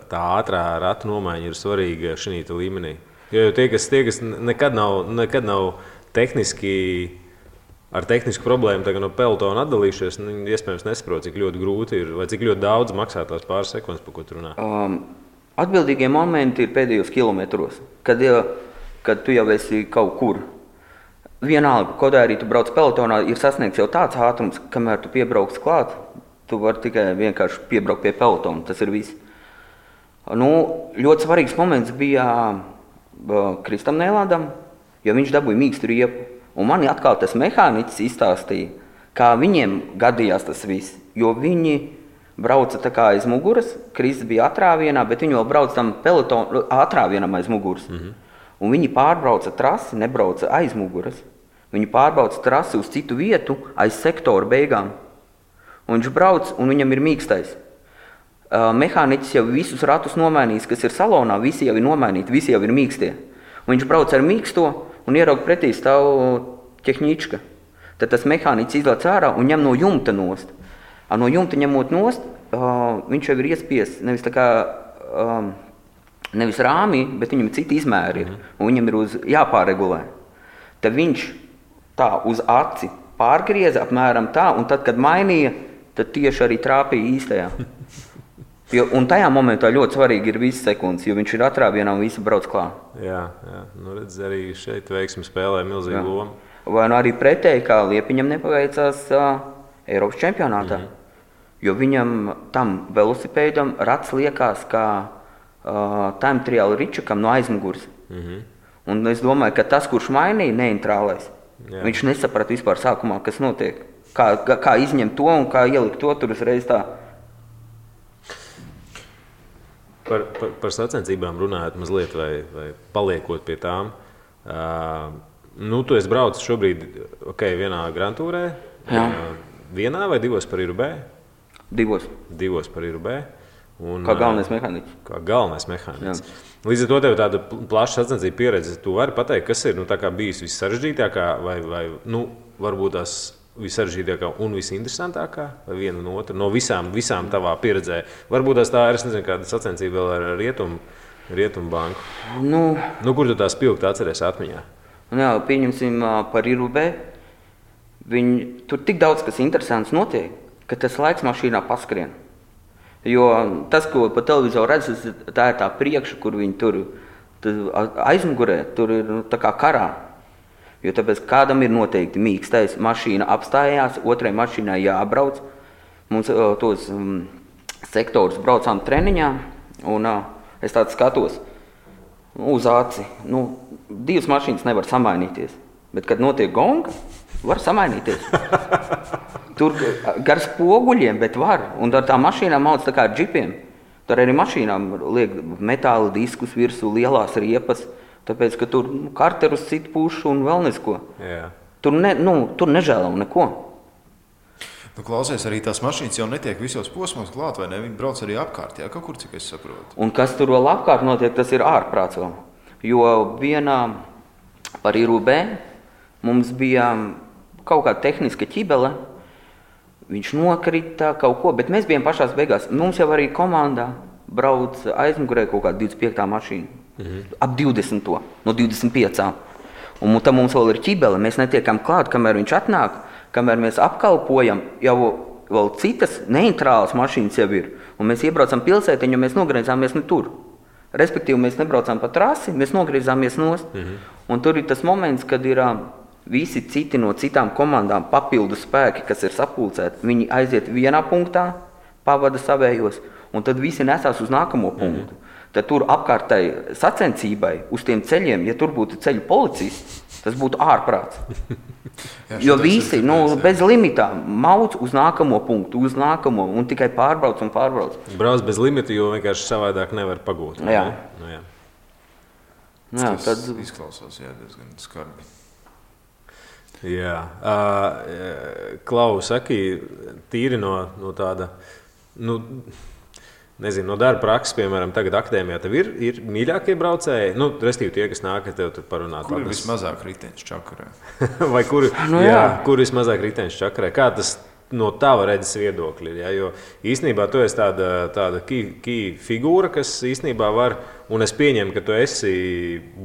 tā ātrā ratu nomaiņa ir svarīga šī līmenī? Jo tie, kas nekad nav tehniski ar tehnisku problēmu no pelotona atdalījušies, iespējams nesaprot, cik ļoti grūti ir, vai cik ļoti daudz maksā tās pāris sekundes, par ko tu runā. Atbildīgie momenti ir pēdējos kilometros, kad tu jau esi kaut kur. Vienalga, kaut arī tu brauc pelotonā, ir sasniegts jau tāds ātrums, kamēr tu piebrauks klāt, tu vari tikai vienkārši piebraukt pie pelotona, tas ir viss. Ļoti svarīgs moments bija Kristam Neilandam, jo viņš dabūja mīkstu riepu. Un man atkal tas mehāniķis izstāstīja, kā viņiem gadījās tas viss, jo viņi brauca tā kā aiz muguras, Kristis bija atrāvienā, bet viņi vēl brauca tam pelotonu atrāvienam aiz muguras. Mm-hmm. Un viņi pārbrauca trasi, nebrauca aiz muguras. Viņi pārbrauca trasi uz citu vietu, aiz sektoru beigām. Un viņš brauc, un viņam ir mīkstais. Mehāniķis jau visus ratus nomainījis, kas ir salonā, visi jau ir nomainīti, visi jau ir mīkstie. Un viņš brauc ar mīksto, un ieraug pretī stāv ķehnička. Tad tas mehāniķis izlaiž ārā un ņem no jumta nost. No jumta ņemot nost, viņš jau ir iespiests nevis rāmī, bet viņam citi izmēri ir. Un viņam ir jāpārregulē. Tad viņš tā uz aci pārgrieza apmēram tā, un tad, kad mainīja, tad tieši arī trāpīja īstajā. Un tajā momentā ļoti svarīgi ir visas sekundes, jo viņš ir atrāvienā un visi brauc klāt. Jā. Redz, arī šeit veiksmi spēlē milzīgu lomu. Vai arī pretēji, kā Liepiņam nepaveicās Eiropas čempionātā. Jo viņam tam velosipēdam rats liekās kā time trial ričukam no aizmugurs. Un es domāju, ka tas, kurš mainīja neintrālais, viņš nesaprata vispār sākumā, kas notiek. Kā izņemt to un kā ielikt to tur uzreiz tā. Par sacensībām runājot mazliet vai paliekot pie tām. Tu esi braucis šobrīd vienā Grand Tourē. Vienā vai divos par Irubē? Divos par Irubē. Kā galvenais mehāniķis. Līdz ar to tev tāda plaša sacensību pieredze. Tu vari pateikt, kas ir bijis vissarežģītākā vai varbūt tās vissarežģītākā un visinteresantākā vai viena un otra no visām tavā pieredzē? Varbūt tā ir, es nezinu, kāda sacensība vēl ar Rietumu banku. Kur tu tā spilgti atceries atmiņā? Pieņemsim par Irubē. Tur tik daudz, kas interesants notiek, ka tas laiks mašīnā paskrien. Jo tas, ko pa televizoru redz, tā ir tā priekša, kur viņi tur aizmugurē, tur ir tā kā karā. Jo tāpēc kādam ir noteikti mīkstais, mašīna apstājās, otrai mašīnai jābrauc. Mums tos sektorus braucām treniņā, un es tāds skatos uz aci. Divas mašīnas nevar samainīties, bet kad notiek gonga, var samainīties. Tur gar spoguļiem, bet var. Un ar tām mašīnām mauc tā kā ar džipiem. Tur arī mašīnām liek metāla diskus virsū, lielās riepas. Tāpēc, ka tur karterus citu pušu un vēl nesko. Tur nežēlo neko. Klausies, arī tās mašīnas jau netiek visos posmos klāt, vai ne? Viņi brauc arī apkārt, kaut kur, cik es saprotu. Un kas tur vēl apkārt notiek, tas ir ārprāts vēl. Jo vienā par Irubē mums bija kaut kāda tehniska ķibele. Viņš nokrita kaut ko, bet mēs bijām pašās beigās. Mums jau arī komandā brauc aizmugurē kaut kāda 25. mašīna. Ap 20. no 25. Un tam mums vēl ir ķibele. Mēs netiekam klāt, kamēr viņš atnāk, kamēr mēs apkalpojam, jau vēl citas neintrālas mašīnas jau ir. Un mēs iebraucam pilsētiņu, mēs nogriezāmies ne tur. Respektīvi, mēs nebraucām pa trasi, mēs nogriezāmies nost. Un tur ir tas moments, kad ir visi citi no citām komandām papildu spēki, kas ir sapulcēti. Viņi aiziet vienā punktā, pavada savējos, un tad visi nesās uz nākamo punktu. Tad tur apkārtai sacensībai uz tiem ceļiem, ja tur būtu ceļu policists, tas būtu ārprāts. Jo visi bez limitā mauc uz nākamo punktu, un tikai pārbrauc. Brauc bez limita, jo vienkārši savādāk nevar pagūt. Tas izklausās diezgan skarbi. Klau, saki, tīri no tāda, nezinu, no darba prakses, piemēram, tagad akadēmijā tev ir mīļākie braucēji, restīvi tie, kas nāk ar tev tur parunāt. Kur ir vismazāk riteņš čakarē? Vai kur vismazāk riteņš čakarē? Kā tas no tava redzes viedokļa? Jo īstenībā tu esi tāda key figūra, kas īstenībā var, un es pieņemu, ka tu esi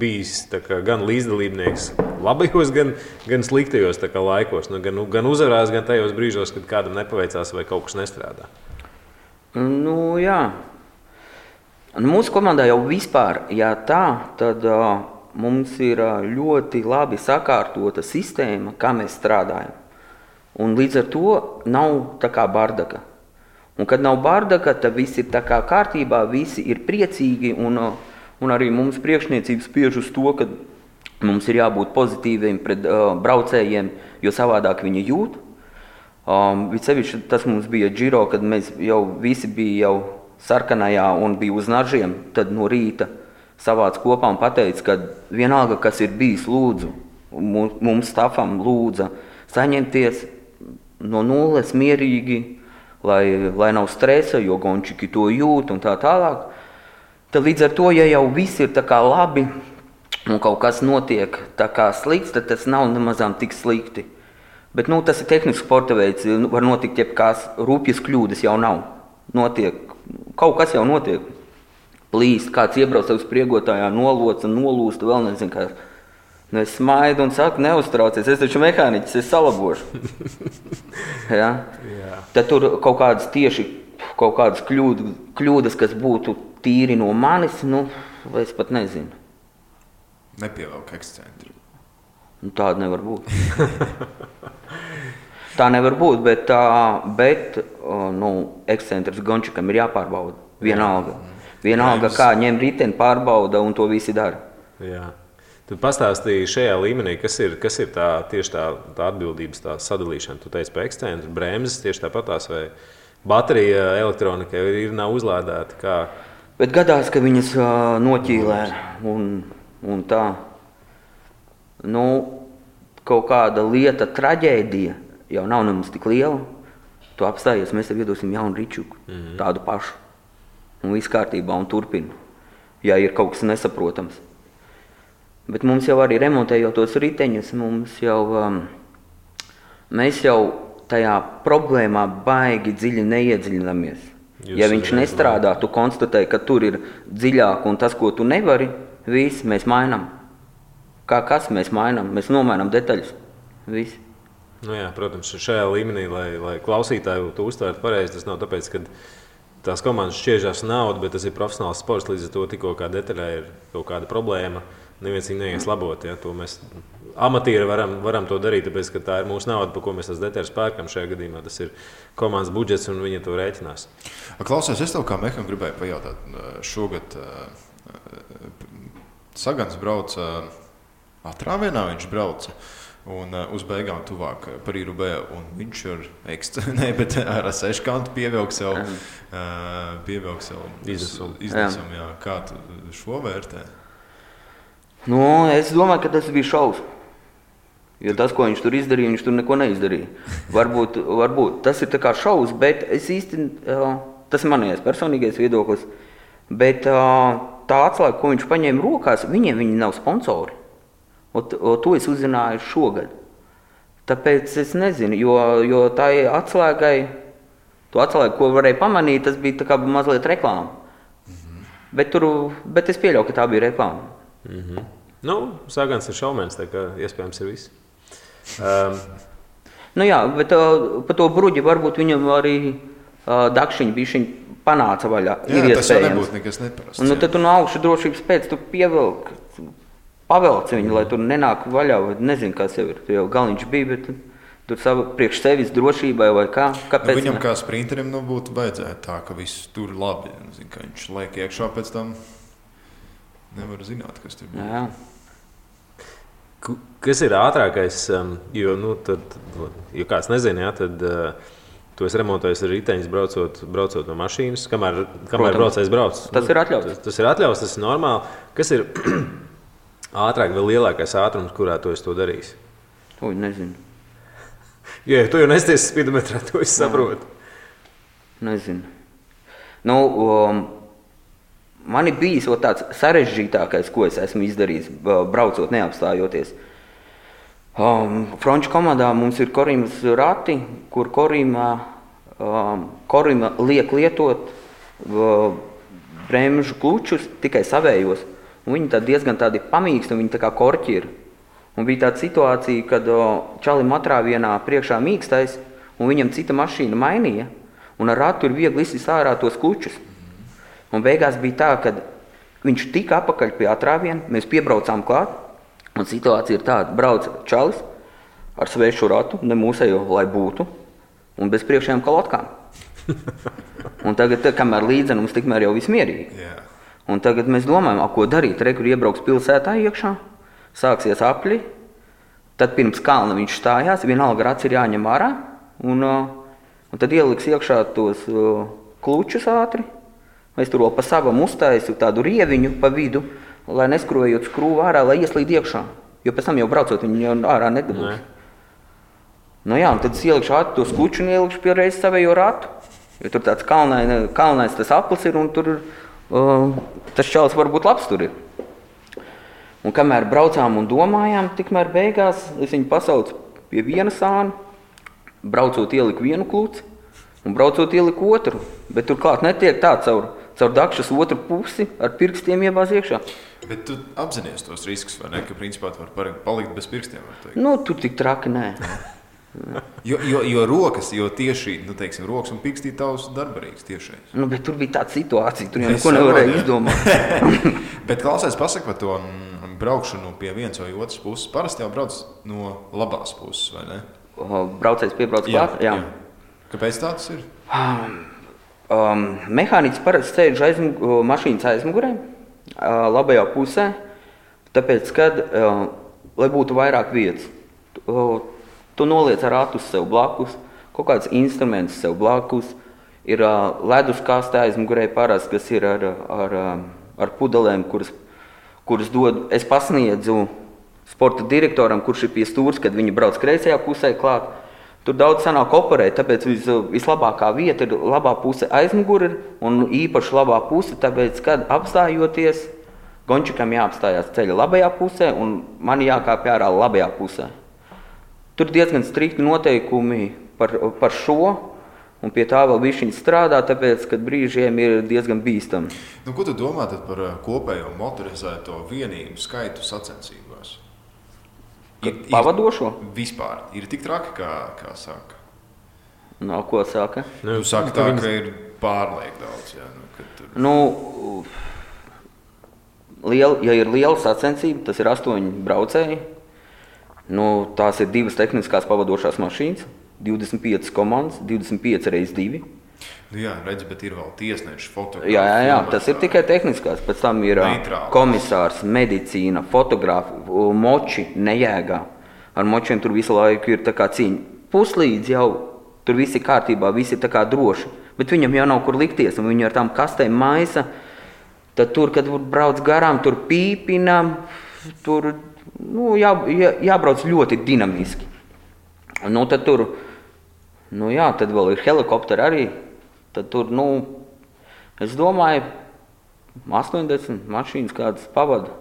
bijis gan līdzdalībnieks labajos, gan sliktajos laikos, gan uzvarās, gan tajos brīžos, kad kādam nepaveicās vai kaut kas nestrādā. Mūsu komandā jau vispār, tad mums ir ļoti labi sakārtota sistēma, kā mēs strādājam. Un līdz ar to nav tā kā bardaka. Un kad nav bardaka, tad viss ir tā kā kārtībā, visi ir priecīgi, un arī mums priekšniecības spiež uz to, ka mums ir jābūt pozitīviem pret braucējiem, jo savādāk viņi jūt. Vicevišķi tas mums bija Giro, kad mēs jau visi bija jau sarkanajā un bija uz nažiem, tad no rīta savāc kopā un pateica, ka vienalga, kas ir bijis, lūdzu, mums stafam lūdza saņemties no nulles mierīgi, lai nav stresa, jo gončiki to jūt un tā tālāk. Tad līdz ar to, ja jau viss ir tā kā labi un kaut kas notiek tā kā slikts, tad tas nav nemazām tik slikti. Bet tas ir tehnisks sporta veids, var notikt jebkās, rūpjas kļūdas jau nav. Kaut kas jau notiek. Plīst, kāds iebrauc uz priegotājā, nolūsta, vēl nezinu kā. Es smaidu un saku, neuztraucies, es taču mehāniķis, es salabošu. Tad tur kaut kādas kļūdas, kas būtu tīri no manis, es pat nezinu. Nepievelk ekscentri. Tāda nevar būt. Tā nevar būt, bet ekscentrs Gončikam ir jāpārbauda. Vienalga, kā ņem riteni, pārbauda un to visi dara. Jā. Tad pastāstīji šajā līmenī, kas ir tieši tā atbildības tā sadalīšana. Tu teici, pa ekscentu, bremzes tieši tāpatās, vai baterija elektronika nav uzlādēta. Kā? Bet gadās, ka viņas noķīlē un tā. Nu, kaut kāda lieta, traģēdija jau nav nemaz tik liela. Tu apstājies, mēs tev iedosim jaunu ričuku, tādu pašu. Un viss kārtībā un turpina, ja ir kaut kas nesaprotams. Bet mums jau arī remontējot tos riteņus, mēs jau tajā problēmā baigi dziļi neiedziļinamies. Ja viņš nestrādā, tu konstatē, ka tur ir dziļāk un tas, ko tu nevari, viss mēs mainām. Kas mēs mainām? Mēs nomainām detaļas. Viss. Nu jā, protams, šajā līmenī, lai klausītāji to uztvērtu pareizi, tas nav tāpēc, ka tās komandas šķiežās naudu, bet tas ir profesionāls sports, līdz ar to tikko kā detaļā ir kaut kāda problēma. Neviens viņu neies labot. Ja? To mēs amatieri varam to darīt, tāpēc, ka tā ir mūsu nauda, par ko mēs tās detaļas pērkam. Šajā gadījumā tas ir komandas budžets, un viņi to rēķinās. Klausies, es tev kā mehānikam gribēju pajautāt. Šogad Sagans brauca atrāvienā, viņš brauca. Un uz beigām tuvāk par Irubē, un viņš ar seškantu pievilka sev iznesumu. Jā. Kā tu šo vērtē? Nu, es domāju, ka tas bija šausmas. Jo tas, ko viņš tur izdarīja, viņš tur neko neizdarīja. Varbūt tas ir tā kā šausmas, bet es īsti, tas ir manējais personīgais viedoklis, bet tā atslēga, ko viņš paņēma rokās, viņi nav sponsori. To es uzzināju šogad. Tāpēc es nezinu, jo tā atslēgai, to atslēgu, ko varēja pamanīt, tas bija tā kā mazliet reklāma. Bet es pieļauju, ka tā bija reklāma. Nu, Sagans ir šaumēns, tā kā iespējams ir viss. Nu jā, bet pa to bruģi varbūt viņam arī dakšiņi bišķiņ panāca vaļā. Jā, tas jau nebūtu nekas neparasts. Un tad tu no augšu drošības pēc tu pavelc viņu, lai tur nenāk vaļā, vai nezinu, kas jau ir. Jau galniņš bija, bet tur priekš sevis drošībai vai kā. Kāpēc? Viņam kā sprinterim būtu vajadzētu tā, ka viss tur labi. Zin, ka viņš liek iekšā pēc tam. Nevar zināt, kas tur bija. Jā. Kas ir ātrākais? Jo kāds nezina, jā, tad tu esi remontējis ar riteņus braucot no mašīnas. Kamēr braucējs brauc? Tas ir atļauts. Tas ir atļauts, tas ir normāli. Kas ir ātrāk vai lielākais ātrums, kurā tu esi to darījis? To nezinu. Jo, tu jau nesties spidometrā, to es saprotu. Nezinu. Man ir bijis tāds sarežģītākais, ko es esmu izdarījis, braucot neapstājoties. Franču komandā mums ir Korimas rati, kur Korima liek lietot bremžu klučus tikai savējos. Un viņi diezgan tādi pamīksti, un viņi tā kā korķi ir. Un bija tāda situācija, kad čalim atrāvienā priekšā mīkstais, un viņam cita mašīna mainīja, un ar ratu ir viegli izsist ārā tos klučus. Un beigās bija tā, ka viņš tika apakaļ pie atrāviena, mēs piebraucām klāt, un situācija ir tāda, brauc čalis ar svešu ratu, ne mūsējo, lai būtu, un bez priekšējām kalotkām. Un tagad, kamēr līdzenums, tikmēr jau viss mierīgi. Yeah. Un tagad mēs domājam, ko darīt, kur iebrauks pilsētā iekšā, sāksies apļi, tad pirms kalna viņš stājās, vienalga rats ir jāņem ārā, un tad ieliks iekšā tos klučus ātri. Mēs tur vēl pa savam uztaisu tādu rieviņu pa vidu, lai neskrojot skrūvu ārā, lai ieslīd iekšā. Jo pēc tam jau braucot, viņi jau ārā nedabūs. Nu jā, un tad es ielikšu ātri to skuču un ielikšu pie reizes savējo ratu. Jo tur tāds kalnais tas aplis ir un tur tas čalis varbūt labs tur ir. Un kamēr braucām un domājām, tikmēr beigās es viņu pasaucu pie viena sāna, braucot ieliku vienu kluci un braucot ieliku otru. Bet tur klāt netiek tā caur dakšas otru pusi ar pirkstiem iebāz iekšā. Bet tu apzinies tos riskus, vai ne? Ka principā tu var palikt bez pirkstiem, var teikt. Nu, tur tik traki nē. jo rokas, jo tieši, teiksim, rokas un pirkstī tavs darbarīgs tiešais. Nu, bet tur bija tāda situācija, tur jau neko nevarēja izdomāt. Bet klausies, pasaka par to braukšanu pie vienas vai otras puses. Parasti jau brauc no labās puses, vai ne? Braucējs piebrauc klāt? Jā. Kāpēc tāds ir? Mehāniķis parasti sēž mašīnas aizmugurē, labajā pusē. Tāpēc, kad, lai būtu vairāk vietas, tu noliec ratus sev blakus, kaut kāds instruments sev blakus, ir ledus kastē aizmugurē parasti, kas ir ar pudelēm, kuras dod. Es pasniedzu sporta direktoram, kurš ir pie stūres, kad viņi brauc kreisajā pusē klāt. Tur daudz sanāk operēt, tāpēc vislabākā vieta ir labā puse aizmuguri un īpaši labā puse, tāpēc, kad apstājoties, gončikam jāapstājās ceļa labajā pusē un man jākāpj ārā labajā pusē. Tur diezgan strikti noteikumi par šo, un pie tā vēl bišķiņ strādā, tāpēc, kad brīžiem ir diezgan bīstami. Nu, ko tu domā tad par kopējo motorizēto vienību skaitu sacensībās? Pavadošo? Vispār. Ir tik traki, kā saka? No, ko saka? Nu, saka tā, ka ir pārliek daudz. Jā, Ja ir liela sacensība, tas ir 8 braucēji. Tās ir 2 tehniskās pavadošās mašīnas, 25 komandas, 25 x 2. Jā, redz, bet ir vēl tiesneši, fotografi. Jā, tas ir tikai tehniskās. Pēc tam ir komisārs, medicīna, fotografi, moči nejēgā. Ar močiem tur visu laiku ir tā kā cīņa. Puslīdz jau tur viss ir kārtībā, viss ir tā kā droši. Bet viņam jau nav kur likties, un viņi ar tām kastēm maisa. Tad tur, kad brauc garām, tur pīpina, tur jābrauc ļoti dinamiski. Tad tur, tad vēl ir helikopteri arī. Tad tur, es domāju, 80 mašīnas kādas pavada.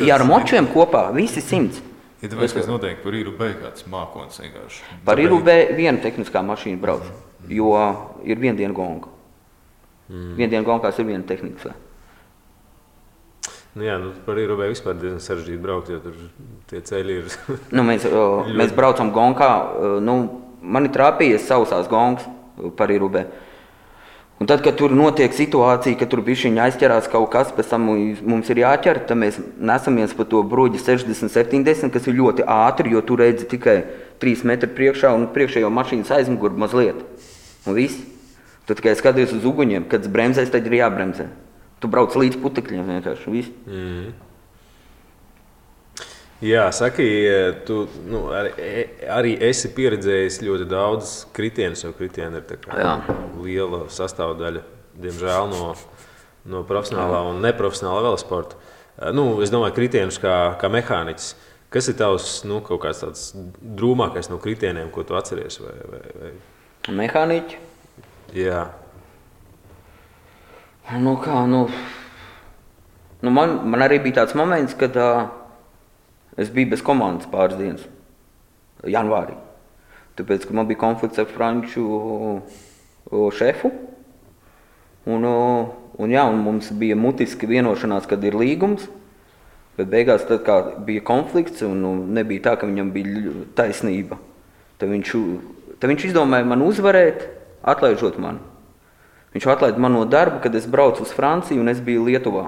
Ja ar močiem kopā, visi 100. Ja tāpēc, kas notiek par IRUB kāds mākons vienkārši. Par IRUB viena tehniskā mašīna brauc, jo ir viena diena gonga. Viena diena gongās ir viena tehniskā. Par IRUB vispār diezgan sarežģīti braukt, jo tur tie ceļi ir... Mēs braucam gongā, man ir trāpījies sausās gongas par IRUB. Un tad, kad tur notiek situācija, ka tur bišķiņi aizķerās kaut kas, pēc tam mums ir jāķer, tad mēs nesamies pa to broģi 60-70, kas ir ļoti ātri, jo tu redzi tikai 3 metri priekšā un priekšējo mašīnas aizmuguri mazliet. Un viss. Tu tikai skaties uz uguņiem, kad bremzēs, tad ir jābremzē. Tu brauc līdz putekļiem vienkārši, viss. Jā, saki, tu arī esi pieredzējis ļoti daudz kritienus, jo kritieni ir tā kā liela sastāvdaļa, diemžēl, no profesionālā un neprofesionālā velosporta. Es domāju, kritienus kā mehāniķis. Kas ir tavs kaut kāds tāds drūmākais no kritieniem, ko tu atceries? Vai... Mehāniķi? Jā. Man arī bija tāds moments, kad es biju bez komandas pāris dienas, janvārī. Tāpēc, ka man bija konflikts ar franču šefu. Un mums bija mutiski vienošanās, kad ir līgums. Bet beigās, tad kā bija konflikts un nebija tā, ka viņam bija taisnība. Tad viņš izdomāja man uzvarēt, atlaižot mani. Viņš atlaida man no darba, kad es braucu uz Franciju un es biju Lietuvā.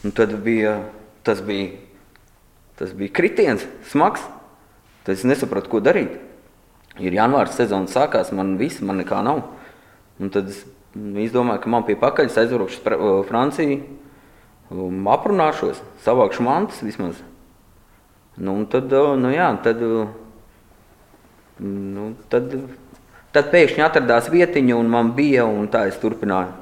Un tad tas bija kritiens, smags. Tad es nesapratu, ko darīt. Ir janvārs sezona sākās, man nekā nav. Un tad es izdomāju, ka man pie pakaļas aizbraukšu uz Franciju, aprunāšos, savākšu mantas vismaz. Tad pēkšņi atradās vietiņa un man bija, un tā es turpināju.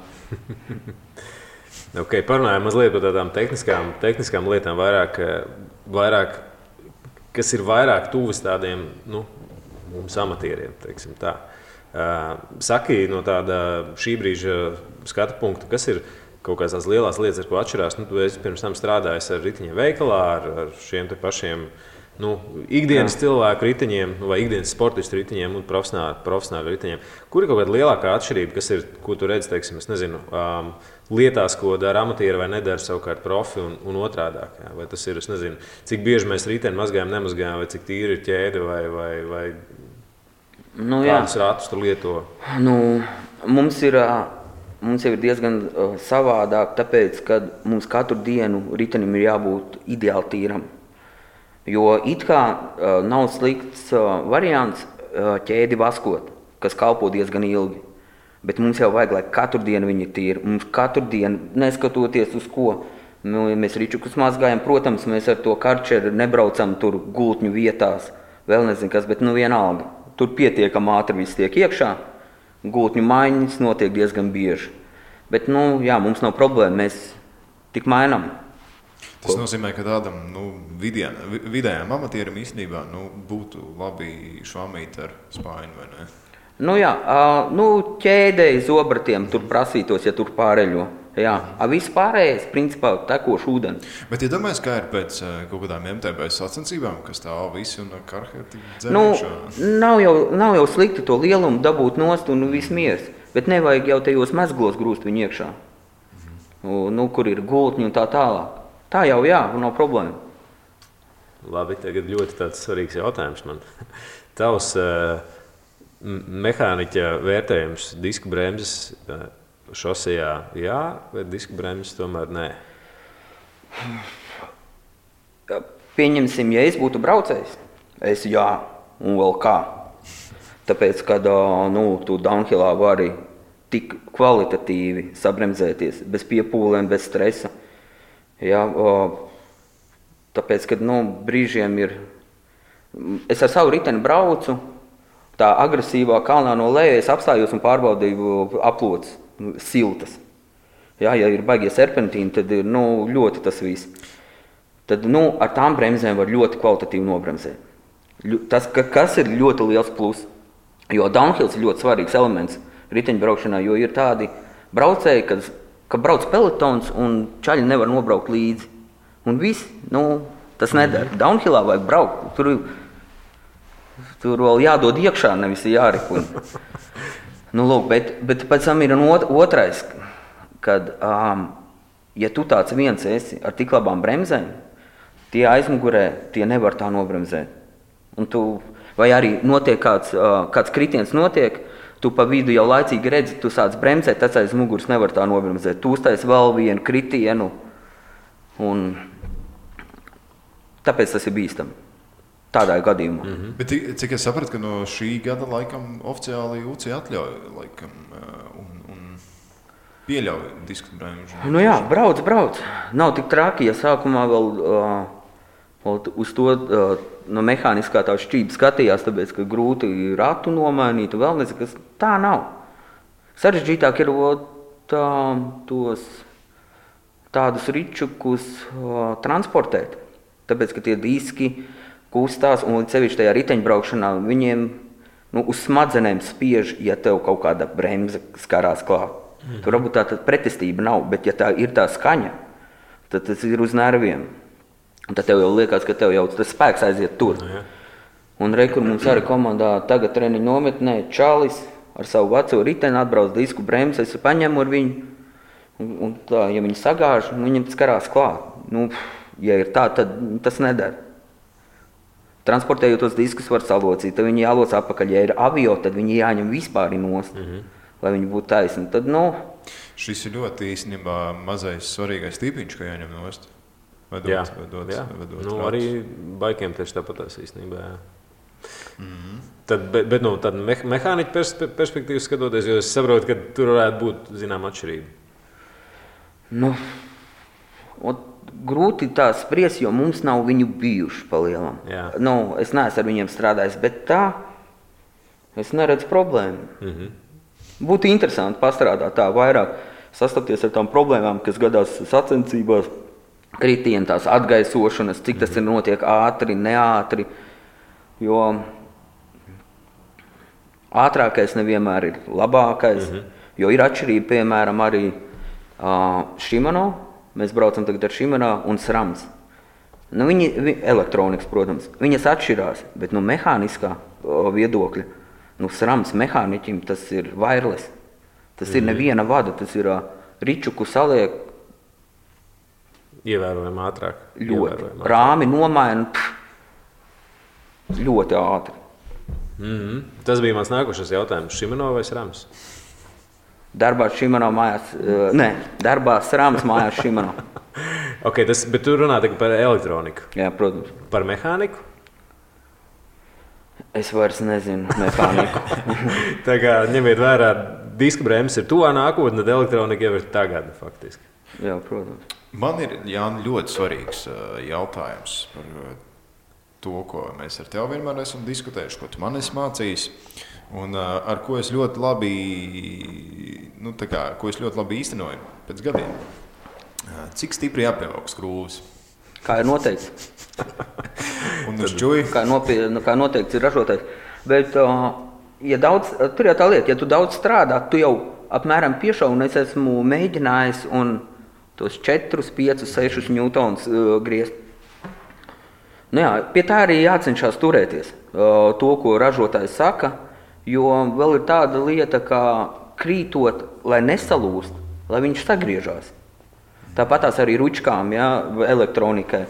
Parunājam mazliet par tādām tehniskām lietām vairāk, kas ir vairāk tuvas tādiem, mums amatieriem, teiksim tā. Saki no tāda šī brīža skatu punkta, kas ir kaut kādas tās lielās lietas, ar ko atšķirās? Tu esi pirms tam strādājis ar riteņiem veikalā, ar šiem te pašiem ikdienas cilvēku riteņiem, vai ikdienas sportistu riteņiem un profesionālu riteņiem. Kur ir kaut kāda lielākā atšķirība, kas ir, ko tu redzi, teiksim, es nezinu, lietās, ko dara amatieri vai nedara savukārt profi un otrādāk? Jā? Vai tas ir, es nezinu, cik bieži mēs riteni mazgājam, nemazgājam, vai cik tīri ir ķēde, vai kādus ratus tu lieto? Mums jau ir diezgan savādāk, tāpēc, ka mums katru dienu ritenim ir jābūt ideāli tīram. Jo it kā nav slikts variants ķēdi vaskot, kas kalpo diezgan ilgi. Bet mums jau vajag, lai katru dienu viņi ir tīri. Mums katru dienu, neskatoties uz ko, mēs ričukus mazgājam. Protams, mēs ar to karčeru nebraucam tur gultņu vietās, vēl nezinu kas, bet vienalga. Tur pietiekam ātri viss tiek iekšā. Gultņu maiņas notiek diezgan bieži. Bet, mums nav problēma, mēs tik mainām. Tas nozīmē, ka tādam vidējām amatierim īstenībā būtu labi švamīt ar spāņu, vai ne? Ķēdēji zobratiem tur prasītos, ja tur pāreļo. Jā, viss pārējais, principā, tekošu ūdeni. Bet, ja domājies, kā ir pēc kaut kādām MTB sacensībām, kas stāv visi un karhēti dzerēšā? Nav jau slikti to lielumu dabūt nost un viss miers, bet nevajag jau tajos mezglos grūst viņu iekšā, kur ir gultņi un tā tālāk. Tā jau nav problēma. Labi, tagad ļoti tāds svarīgs jautājums man. Tavs mehāniķa vērtējums disku bremzes šosejā jā, vai disku bremzes tomēr nē? Pieņemsim, ja es būtu braucējs, es jā, un vēl kā. Tāpēc, kad tu downhillā vari tik kvalitatīvi sabremzēties, bez piepūlēm, bez stresa. Jā, tāpēc, kad brīžiem ir, es ar savu riteni braucu, tā agresīvā kalnā no lejas apstājos un pārbaudīju aplodes, siltas. Jā, ja ir baigie serpentīni, tad ir ļoti tas viss. Tad ar tām bremzēm var ļoti kvalitatīvi nobremzēt. Tas, kas ir ļoti liels plus, jo downhills ir ļoti svarīgs elements riteņbraukšanā, jo ir tādi braucēji, ka brauc pelotons un čaļi nevar nobraukt līdzi. Un viss, tas nedara. Downhillā vajag braukt. Tur vēl jādod iekšā, nevis jārikuļ. Bet pēc tam ir otrais, kad, ja tu tāds viens esi ar tik labām bremzēm, tie aizmugurē, tie nevar tā nobremzēt. Vai arī notiek kāds kritiens notiek, tu pa vidu jau laicīgi redzi, tu sāc bremzēt, tas aiz muguras nevar tā nobremzēt. Tu uztais vēl vienu kritienu, un tāpēc tas ir bīstami. Tādā gadījumā. Mm-hmm. Bet cik es sapratu, ka no šī gada laikam oficiāli UCI atļauj laikam un pieļauj disku bremžu? Jā, brauc. Nav tik traki, ja sākumā vēl uz to no mehāniskā tā šķība skatījās, tāpēc, ka grūti ratu nomainīt, vēl nezinu, kas tā nav. Sarežģītāk ir tos tādus ričukus transportēt, tāpēc, ka tie diski kustās un līdz sevišķi tajā riteņbraukšanā viņiem uz smadzenēm spiež, ja tev kaut kāda bremze skarās klāt. Tur varbūt tā pretestība nav, bet ja tā ir tā skaņa, tad tas ir uz nerviem. Un tad tev jau liekas, ka tev jau tas spēks aiziet tur. Un kur mums arī komandā tagad treniņu nometnē čalis ar savu veco riteni atbrauc disku bremzi, es paņemu ar viņu. Un tā, ja viņi sagāž, viņam skarās klāt. Ja ir tā, tad tas nedara. Transportējot tos diskus var salocīt, tad viņi jāloc atpakaļ. Ja ir avio, tad viņi jāņem vispār nost, lai viņi būtu taisni. Tad, Šis ir ļoti īstenībā mazais svarīgais tīpiņš, ka jāņem nost. Jā. Arī baikiem tieši tāpatās īstenībā. Jā. Mm-hmm. Bet tad mehāniķa perspektīvas skatoties, jo es saprotu, ka tur varētu būt zinām atšķirība. Grūti tā spriest, jo mums nav viņu bijuši palielam. Es neesmu ar viņiem strādājis, bet tā es neredzu problēmu. Mm-hmm. Būtu interesanti pastrādāt tā vairāk, sastapties ar tām problēmām, kas gadās sacensībās, kritieni, tās atgaisošanas, cik tas ir notiek ātri, neātri, jo ātrākais nevienmēr ir labākais, jo ir atšķirība, piemēram, arī Shimano, mēs braucam tagad ar Shimano un SRAMs. Viņi elektronikas, protams, viņas atšķirās, bet mehāniskā viedokļa, SRAMs mehāniķim tas ir wireless, tas ir neviena vada, tas ir ričuku saliek, ievērojami ātrāk. Ļoti. Rāmi nomaina ļoti ātri. Mm-hmm. Tas bija mans nākošais jautājums. Shimano vai SRAMs? Darbā Shimano mājās. Darbā SRAMs mājās Shimano. Bet tu runā tikai par elektroniku. Jā, protams. Par mehāniku? Es vairs nezinu mehāniku. Tā kā ņemiet vērā diska bremzes ir tuvā nākotnē, tad elektronika jau ir tagad, faktiski. Jā, protams. Man ir, Jāni, ļoti svarīgs jautājums par to, ko mēs ar tevi vienmēr esam diskutējuši, ko tu man esi mācījis, un ar ko es ļoti labi, ko es ļoti labi īstenoju pēc gadiem. Cik stipri jāpievelk skrūves? Kā ir noteikts. Un uz čuju? Kā noteikts ir ražotājs. Bet, tur jau tā lieta, ja tu daudz strādā, tu jau apmēram piešauj, un es esmu mēģinājis un tos 4, 5, 6 newtonus griezt. Pie tā arī jācenšas turēties. To, ko ražotājs saka, jo vēl ir tāda lieta, kā krītot, lai nesalūst, lai viņš sagriežās. Tāpatās arī ručkām, elektronikai.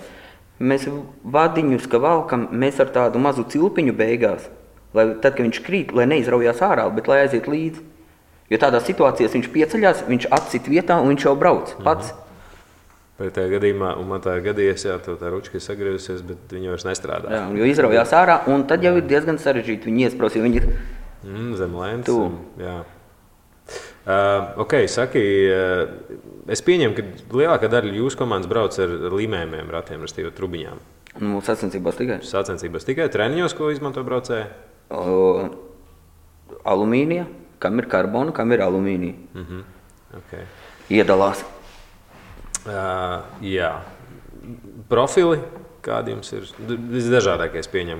Mēs vadiņus, ka valkam, mēs ar tādu mazu cilpiņu beigās, lai tad, kad viņš krīt, lai neizraujās ārā, bet lai aiziet līdzi. Jo tādā situācijās viņš pieceļās, viņš atcit vietā un viņš jau brauc pats. Bet tajā gadījumā, un man tā ir gadījies, tā ručka ir sagriezusies, bet viņa vairs nestrādā. Jā, jo izraujās ārā, un tad jau ir diezgan sarežģīti viņi iespraus, jo viņi ir zem lēns. Jā. Saki, es pieņemu, ka lielākā daļa jūsu komandas brauc ar līmējumiem ratiem, restīvi trubiņām. Sacensībās tikai. Sacensībās tikai. Treniņos, ko izmanto braucēji? Alumīnija, kam ir karbona, kam ir alumīnija. Iedalās. Jā. Profili, kādi jums ir? Visdažādākais pieņem.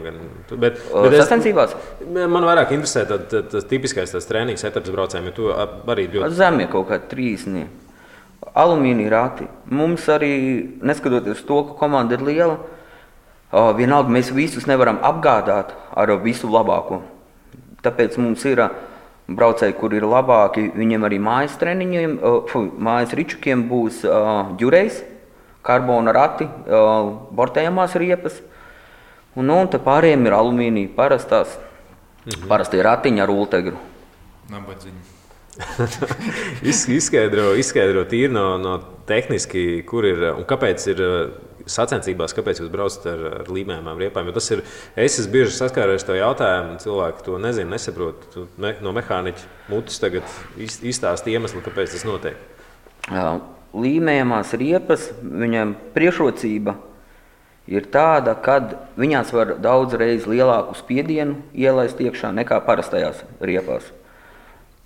Bet sacensībās? Man vairāk interesē tas tipiskais treniņu setups braucējiem, jo tu arī ļoti... Zemie kaut kādi 3. Alumīnija rati. Mums arī, neskatoties to, ka komanda ir liela, vienalga mēs visus nevaram apgādāt ar visu labāko. Tāpēc mums ir braucēji, kur ir labāki, viņiem arī mājas treniņiem, mājas ričukiem būs ģurejs, karbona rati, bortējamās riepas, un te pārējiem ir alumīnija parastās, parastie ratiņi ar ultegru. Nabadziņi. Izskaidro tīri no tehniski, kur ir un kāpēc ir sacensībās, kāpēc jūs braucat ar līmējumām riepām. Jo tas ir, es esmu bieži saskāries to jautājumu, cilvēki to nezina, nesaprot. No mehāniķa mutes tagad izstāst iemeslu, kāpēc tas notiek. Līmējamās riepas, viņam priekšrocība ir tāda, kad viņās var daudz reiz lielāku spiedienu ielaist iekšā nekā parastajās riepās.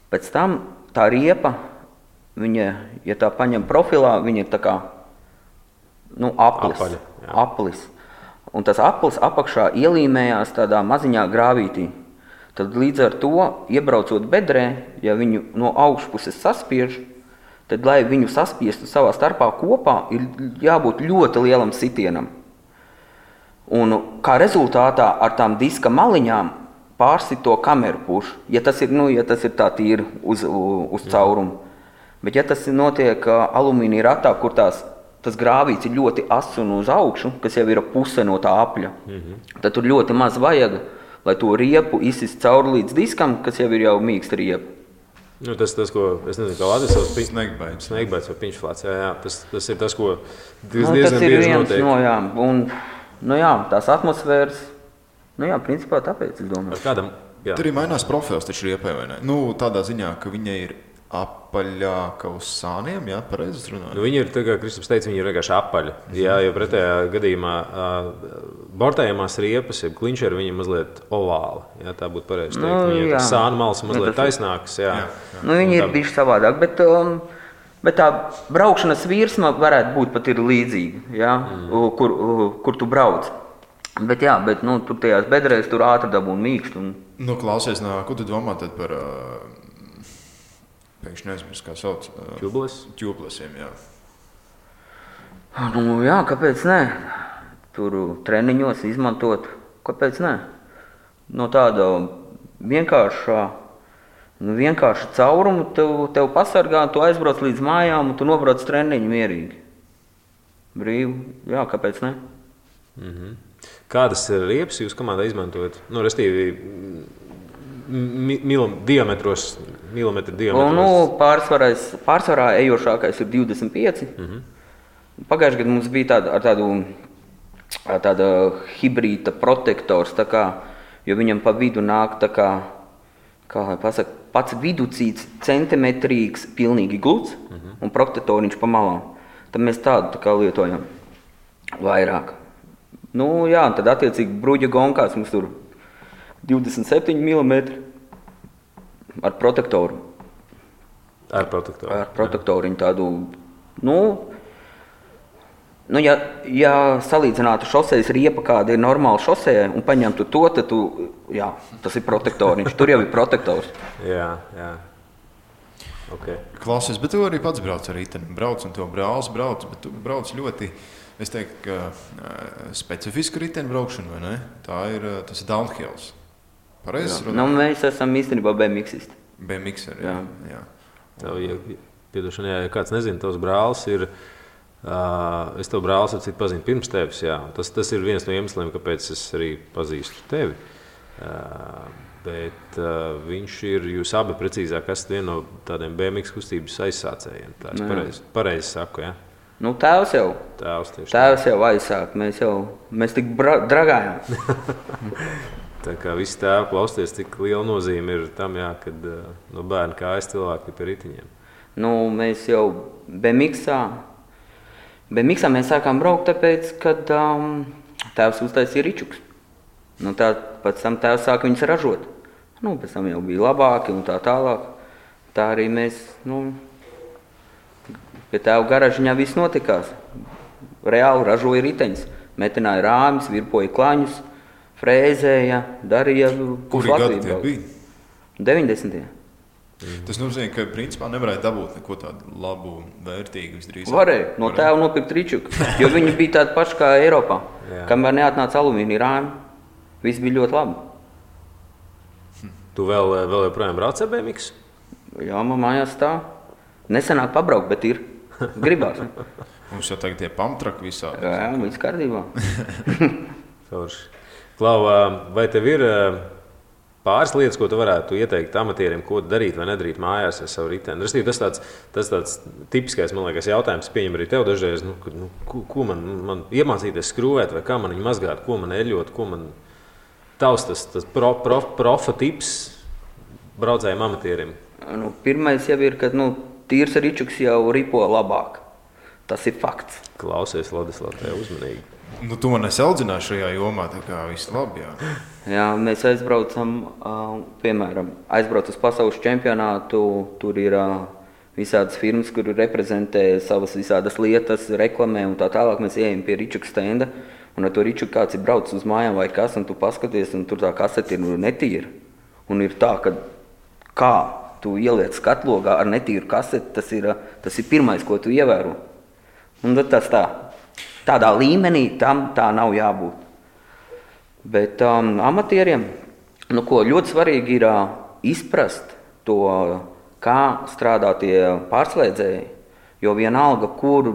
Pēc tam tā riepa, viņa, ja tā paņem profilā, viņa ir tā kā aplis. Un tas aplis apakšā ielīmējās tādā maziņā grāvītī. Tad līdz ar to, iebraucot bedrē, ja viņu no augšpuses saspiež, tad, lai viņu saspiestu savā starpā kopā, ir jābūt ļoti lielam sitienam. Un kā rezultātā ar tām diska maliņām pārsit to kameru pušu, ja tas ir tā tīri uz caurumu. Bet ja tas notiek alumīnija ratā, kur tas grāvīts ir ļoti ass un uz augšu, kas jau ir puse no tā apļa, tad tur ļoti maz vajag, lai to riepu izsist cauri līdz diskam, kas jau ir jau mīksta riepa. Tas, ko, es nezinu, kā Latvijas savs Sneigbaits vai piņšflāts, tas ir tas, ko diezgan bieži notiek. Tās atmosfēras, principā tāpēc, es domāju. Tur arī mainās profils taču riepai, vai ne? Tādā ziņā, ka viņa ir apaļāka uz sāniem, pareizi es runāju? Viņa ir, tā kā Kristaps teica, viņa ir vienkārši apaļa. Jo pretējā gadījumā bortējamās riepas, ja klinčeri, viņa mazliet ovāla. Tā būtu pareizi teikt. Viņa ir sāna malas mazliet taisnākas. Viņa ir bišķi savādāk, bet tā braukšanas virsma varētu būt pat ir līdzīga, kur tu brauc. Bet tur tajās bedrēs tur ātri dabūn mīkst. Klausies, ko tu domā tad par... Pēkšņi neizmirst, kā sauc. Ķūplesiem, kāpēc ne? Tur treniņos izmantot, kāpēc ne? No tāda vienkārša caurumu tev pasargā, tu aizbrauc līdz mājām un tu nobrauc treniņu mierīgi. Brīvi, kāpēc ne? Kādas riepas jūs komandā izmantojat? Restīvi, diametros. Pārsvarā ejošākais ir 25. Pagājušajā gadā mums bija tāda hibrīta protektors, jo viņam pa vidu nāk kā lai pasaka, pats viducīts centimetrīgs, pilnīgi gluds un protektoriņš pa malām. Tad mēs tādu tā kā lietojam vairāk. Nu jā, tad attiecīgi bruģa gonkās mums tur 27 mm ar protektoru. Ar protektoru. Ar protektoriņu tādu, ja salīdzinātu šosejas riepa, kāda ir normāla šosejai, un paņemtu to, tad jā, tas ir protektoriņš. Tur jau ir protektors. Jā. Okay. Klausies, bet tu arī pats brauc ar riteni. Brauc un to brālis brauc, bet tu brauc ļoti, es teiktu, ka specifisku riteni braukšanu, vai ne? Tas ir downhills. Pareizes runāt? Mēs esam īstenībā BMX-isti. BMX-eri, jā. Ja kāds nezina, tavs brālis ir, es tev brālis ar citu pazinu pirms tevis, jā. Tas ir viens no iemesliem, kāpēc es arī pazīstu tevi. Bet viņš ir, jūs abi precīzāk esat viena no tādiem BMX kustības aizsācējiem. Tā es pareizi saku, jā? Tēvs jau. Tēvs jau aizsāk, mēs tik dragājām. Tā kā visi tēvi klausties, cik liela nozīme ir tam, jā, kad no bērna kājas cilvēki pie ritiņiem. Mēs jau BMX-ā mēs sākām braukt, tāpēc, kad tēvs uztaisīja ričuks. Pēc tam tēvs sāka viņus ražot. Pēc tam jau bija labāki un tā tālāk. Tā arī mēs, pie tēva garažiņā viss notikās. Reāli ražoja riteņus, metināja rāmis, virpoja klaņus, frēzēja, darīja. Kuri gadi tie bija? 90. Tas nozīmē, ka principā nevarēja dabūt neko tādu labu, vērtīgu visdrīzāk. Varēja, no tēva nopirkt ričuku, jo viņi bija tādi paši kā Eiropā. Kamēr neatnāca alumīnija rāmi, viss bija ļoti labi. Tu vēl joprojām brauc ar BMX? Jā, man mājās tā. Nesenāk pabraukt, bet ir. Gribās. Mums jau tagad tie pumptraki visādi. Jā, viss kārtībā. Klau, vai tev ir pāris lietas, ko tu varētu ieteikt amatieriem, ko darīt vai nedarīt mājās ar savu riteni? Tas tāds tipiskais, man liekas, jautājums, pieņem arī tev dažreiz, ko man iemācīties skrūvēt, vai kā man viņu mazgāt, ko man eļot, ko man tavs tas profa tips braucējiem amatieriem? Pirmais jau ir, ka tīrs ričuks jau ripo labāk. Tas ir fakts. Klausies, Ladislav, tev uzmanīgi. Tu man audzināji šajā jomā, tā kā viss labi, jā. Jā, mēs aizbraucam, piemēram, uz pasaules čempionātu, tur ir visādas firmas, kur reprezentē savas visādas lietas, reklamē un tā tālāk. Mēs ejam pie ričuka stenda, un ar to ričuku kāds ir braucis uz mājām vai kas, un tu paskaties, un tur tā kasete ir netīra. Un ir tā, ka kā tu ieliec skatlogā ar netīru kaseti, tas ir pirmais, ko tu ievēro. Un tas tādā līmenī tam tā nav jābūt. Bet amatieriem, ļoti svarīgi ir izprast to, kā strādā tie pārslēdzēji, jo vienalga, kur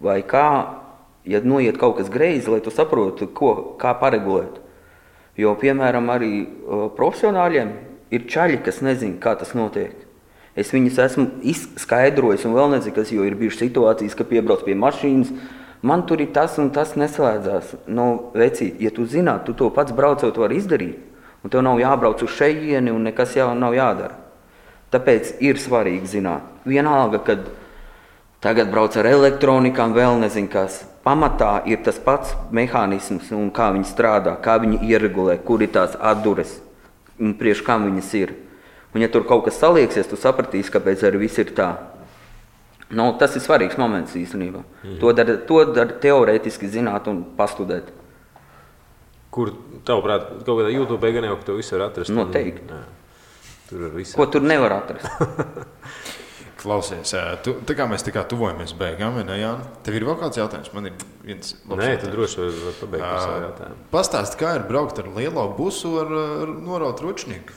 vai kā, ja noiet kaut kas greizi, lai tu saprotu, kā paregulēt. Jo, piemēram, arī profesionāļiem ir čaļi, kas nezina, kā tas notiek. Es viņus esmu izskaidrojis un vēl nezinu, kas, jo ir bijušas situācijas, ka piebrauc pie mašīnas, man tur ir tas un tas neslēdzās. Vecīt, ja tu zināt, tu to pats braucot var izdarīt, un tev nav jābrauc uz šejieni un nekas jau nav jādara. Tāpēc ir svarīgi zināt. Vienalga, kad tagad brauc ar elektronikām, vēl nezinu kas. Pamatā ir tas pats mehānisms un kā viņi strādā, kā viņi ieregulē, kur ir tās atdures un priekš kam viņas ir. Un ja tur kaut kas salieksies, tu sapratīsi, kāpēc arī viss ir tā. Tas ir svarīgs moments īstenībā. To dar teorētiski zināt un pastudēt. Kur, tavuprāt, kaut kādā YouTube gan jau, ka to visu var atrast? Noteikti. Tur var visu. Ko tur nevar atrast? Klausies, tā kā mēs tuvojamies beigām, ne, Jāni? Tev ir vēl kāds jautājums? Man ir viens labs jautājums. Nē, tu droši var pabeigt par savu jautājumu. Pastāsti, kā ir braukt ar lielo busu ar noraut ručnieku?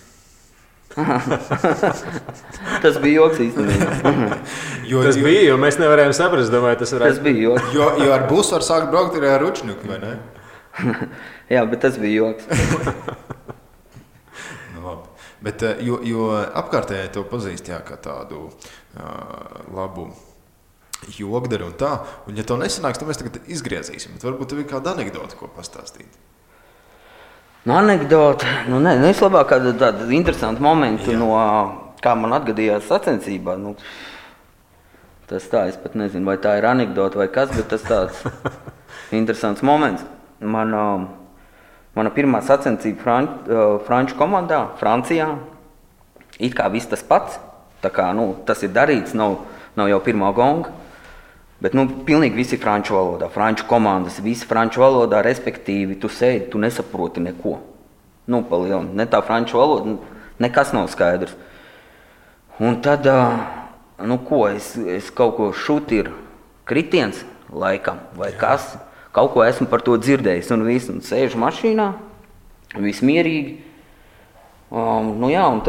Tas bija joks īstenībā. Tas bija, jo mēs nevarējām saprast, domāju, tas varētu. Tas bija joks. Jo ar busu var sākt braukt arī ar ručnieku, vai ne? Jā, bet tas bija joks. Labi. Bet, jo apkārtējai to pazīst, jā, kā tādu labu jogdaru un tā, un ja to nesanāks, tad mēs tagad izgriezīsim, bet varbūt tev ir kāda anekdota, ko pastāstīt. Anekdote. Neslabāk tāda interesanta momenta, kā man atgadījās sacensībā. Tas tā, es pat nezinu, vai tā ir anekdote vai kas, bet tas tāds interesants moments. Mana pirmā sacensība franču komandā, Francijā, it kā viss tas pats. Tā kā, tas ir darīts, nav jau pirmā gonga. Bet pilnīgi visi franču valodā, franču komandas, visi franču valodā, respektīvi, tu sēdi, tu nesaproti neko. Pa lielu, ne tā franču valoda, nekas nav skaidrs. Un tad, es kaut ko šut ir kritiens laikam, vai kas, kaut ko esmu par to dzirdējis, un visu, un sēžu mašīnā, viss mierīgi. Un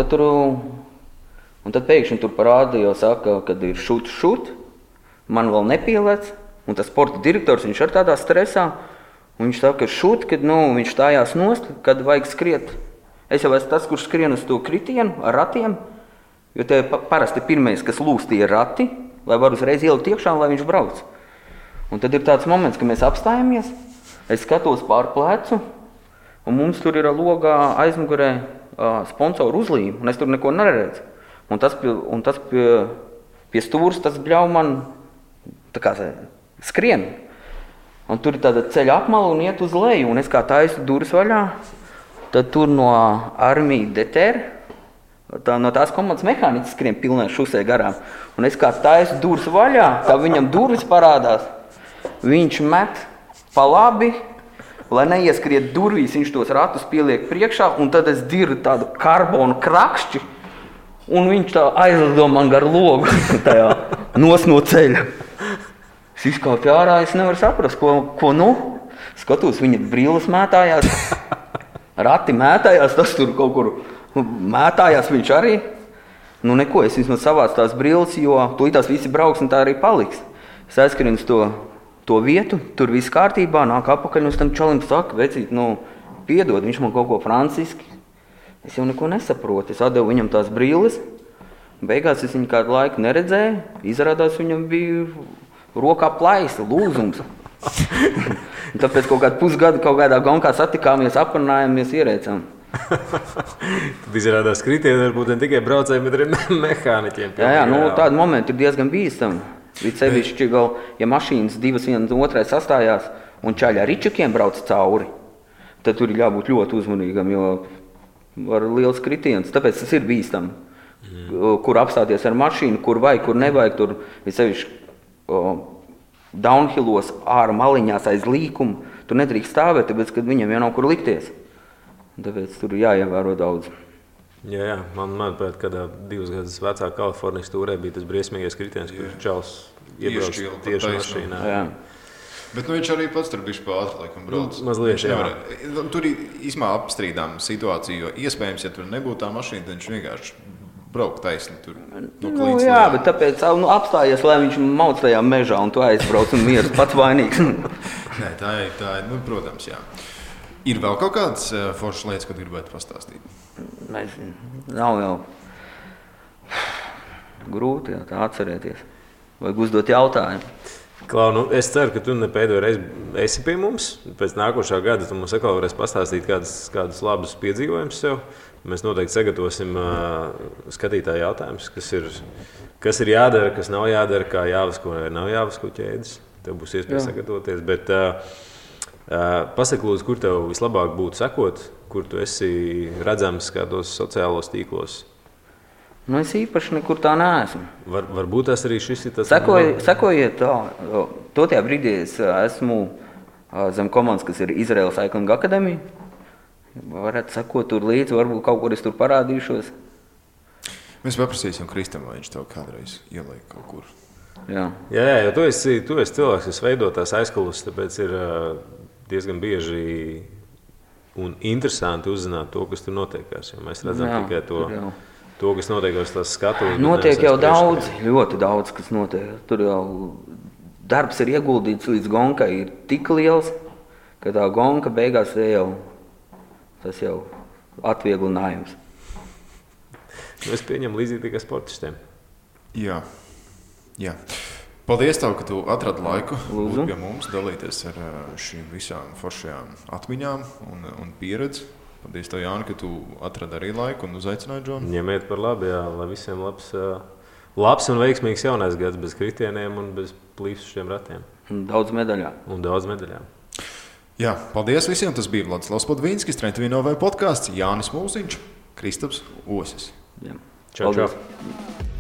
tad pēkšņi tur parādījās, saka, kad ir šut. Man vēl nepielēc, un tas sporta direktors, viņš ir tādā stresā, un viņš saka, kad viņš stājās nost, kad vajag skriet. Es jau esmu tas, kurš skrien uz to kritienu ar ratiem, jo te parasti pirmais, kas lūs, tie ir rati, lai var uzreiz ielikt iekšā, lai viņš brauc. Un tad ir tāds moments, ka mēs apstājamies, es skatos pār plecu, un mums tur ir logā aizmugurē sponsoru uzlīme, un es tur neko neredzu. Un tas pie stūras, tas bļauj man tā kā skrien. Un tur ir tāda ceļa apmala un iet uz leju, un es kā taisu durvis vaļā, tad tur no armija deter, no tās komandas mehāniķis skrien pilnē šusē garām. Un es kā taisu durvis vaļā, kā viņam durvis parādās, viņš met pa labi, lai neieskriet durvīs, viņš tos ratus pieliek priekšā, un tad es dirdu tādu karbonu krakšķi, un viņš tā aizlido man gar logu tajā nos no ceļa. Es izkāpju ārā, es nevaru saprast, ko Skatos, viņa brilles mētājās, rati mētājās, tas tur kaut kur mētājās viņš arī. Neko, es vismaz savācu tās brilles, jo tūlītās visi brauks un tā arī paliks. Es aizskrienu uz to vietu, tur viss kārtībā, nāk apakaļ, un es tam čalim saku, vecīt, piedod, viņš man kaut ko franciski. Es jau neko nesaprotu, es atdevu viņam tās brilles, beigās es viņu kādu laiku neredzēju, izrādās viņam bija rokā plaisa, lūzums. Tāpēc kaut kādu pusgadu kaut kādā gonkā satikāmies, aprunājāmies, ierēcām. Tad izrādās kritieni varbūt ne tikai braucējiem, bet arī mehāniķiem. Jā, tādi momenti ir diezgan bīstami. Līdz sevišķi vēl, ja mašīnas divas viena otrai sastājās un čaļi ar ričukiem brauc cauri, tad tur ir jābūt ļoti uzmanīgam, jo var liels kritiens. Tāpēc tas ir bīstami. Kur apstāties ar mašīnu, kur vajag, kur nevajag, tur ir sevišķi downhillos ārā maliņās aiz līkumu. Tur nedrīkst stāvēt, tāpēc, kad viņam jau nav kur likties. Tāpēc tur jāievēro daudz. Jā, manuprāt, kādā 2 gadus vecā Kalifornijas tūrē bija tas briesmīgais kritiens, kur čals iebrauc tieši mašīnā. Jā. Bet viņš arī pats tur bišķi pa ātri laikam brauc. Mazliet, jā. Tur ir īsmā apstrīdām situācija, jo iespējams, ja tur nebūtu tā mašīna, tad viņš vienkārši braukt taisni tur no klīdz. Jā, bet tāpēc apstājies, lai viņš mauc tajā mežā un tu aizbrauc un mieras pats vainīgs. Nē, tā ir, protams, jā. Ir vēl kaut kādas foršas lietas, ko gribētu pastāstīt? Nav jau grūti tā atcerēties. Vajag uzdot jautājumu. Klau, es ceru, ka tu ne pēdējo reizi esi pie mums. Pēc nākošā gada tu mums atkal varēsi pastāstīt kādus labus piedzīvojumus sev. Mēs noteikti sagatavosim skatītāju jautājumus, kas ir jādara, kas nav jādara, kā jāvasko vai nav jāvasko ķēdes. Tev būs iespēja sagatavoties. Bet pasaki, lūdzu, kur tev vislabāk būtu sekot, kur tu esi redzams kādos sociālos tīklos? Es īpaši nekur tā neesmu. Varbūt tas arī šis ir tas... Sekojiet tā. Totajā brīdī es esmu zem komandas, kas ir Izraels Cycling Academy. Varētu sekot tur līdzi, varbūt kaut kur es tur parādīšos. Mēs paprasīsim Kristam, vai viņš tev kādreiz ieliek kaut kur. Jā, jo tu esi cilvēks, kas veido tās aizkulisses, tāpēc ir diezgan bieži un interesanti uzzināt to, kas tur notiekās. Jo mēs redzam tikai to, kas notiekās tās skatuves. Notiek jau daudz, ļoti daudz, kas notiek. Tur jau darbs ir ieguldīts līdz gonkai, ir tik liels, ka tā gonka beigās tas jau atvieglinājums. Es pieņemu līdzīgi tikai sportistiem. Jā. Paldies tev, ka tu atradi laiku Lūdzu. būt pie mums, dalīties ar šīm visām foršajām atmiņām un pieredzi. Paldies tev, Jāni, ka tu atradi arī laiku un uzaicināji Džonu. Ņemiet par labi, jā, lai visiem labs un veiksmīgs jaunais gads bez kritieniem un bez plīsušiem ratiem. Daudz medaļām. Jā, paldies visiem. Tas bija Vladislavs Podvīnskis, Trentvīnovē podkāsts, Jānis Mūziņš, Kristaps Osis. Jā. Čau, čau. Paldies.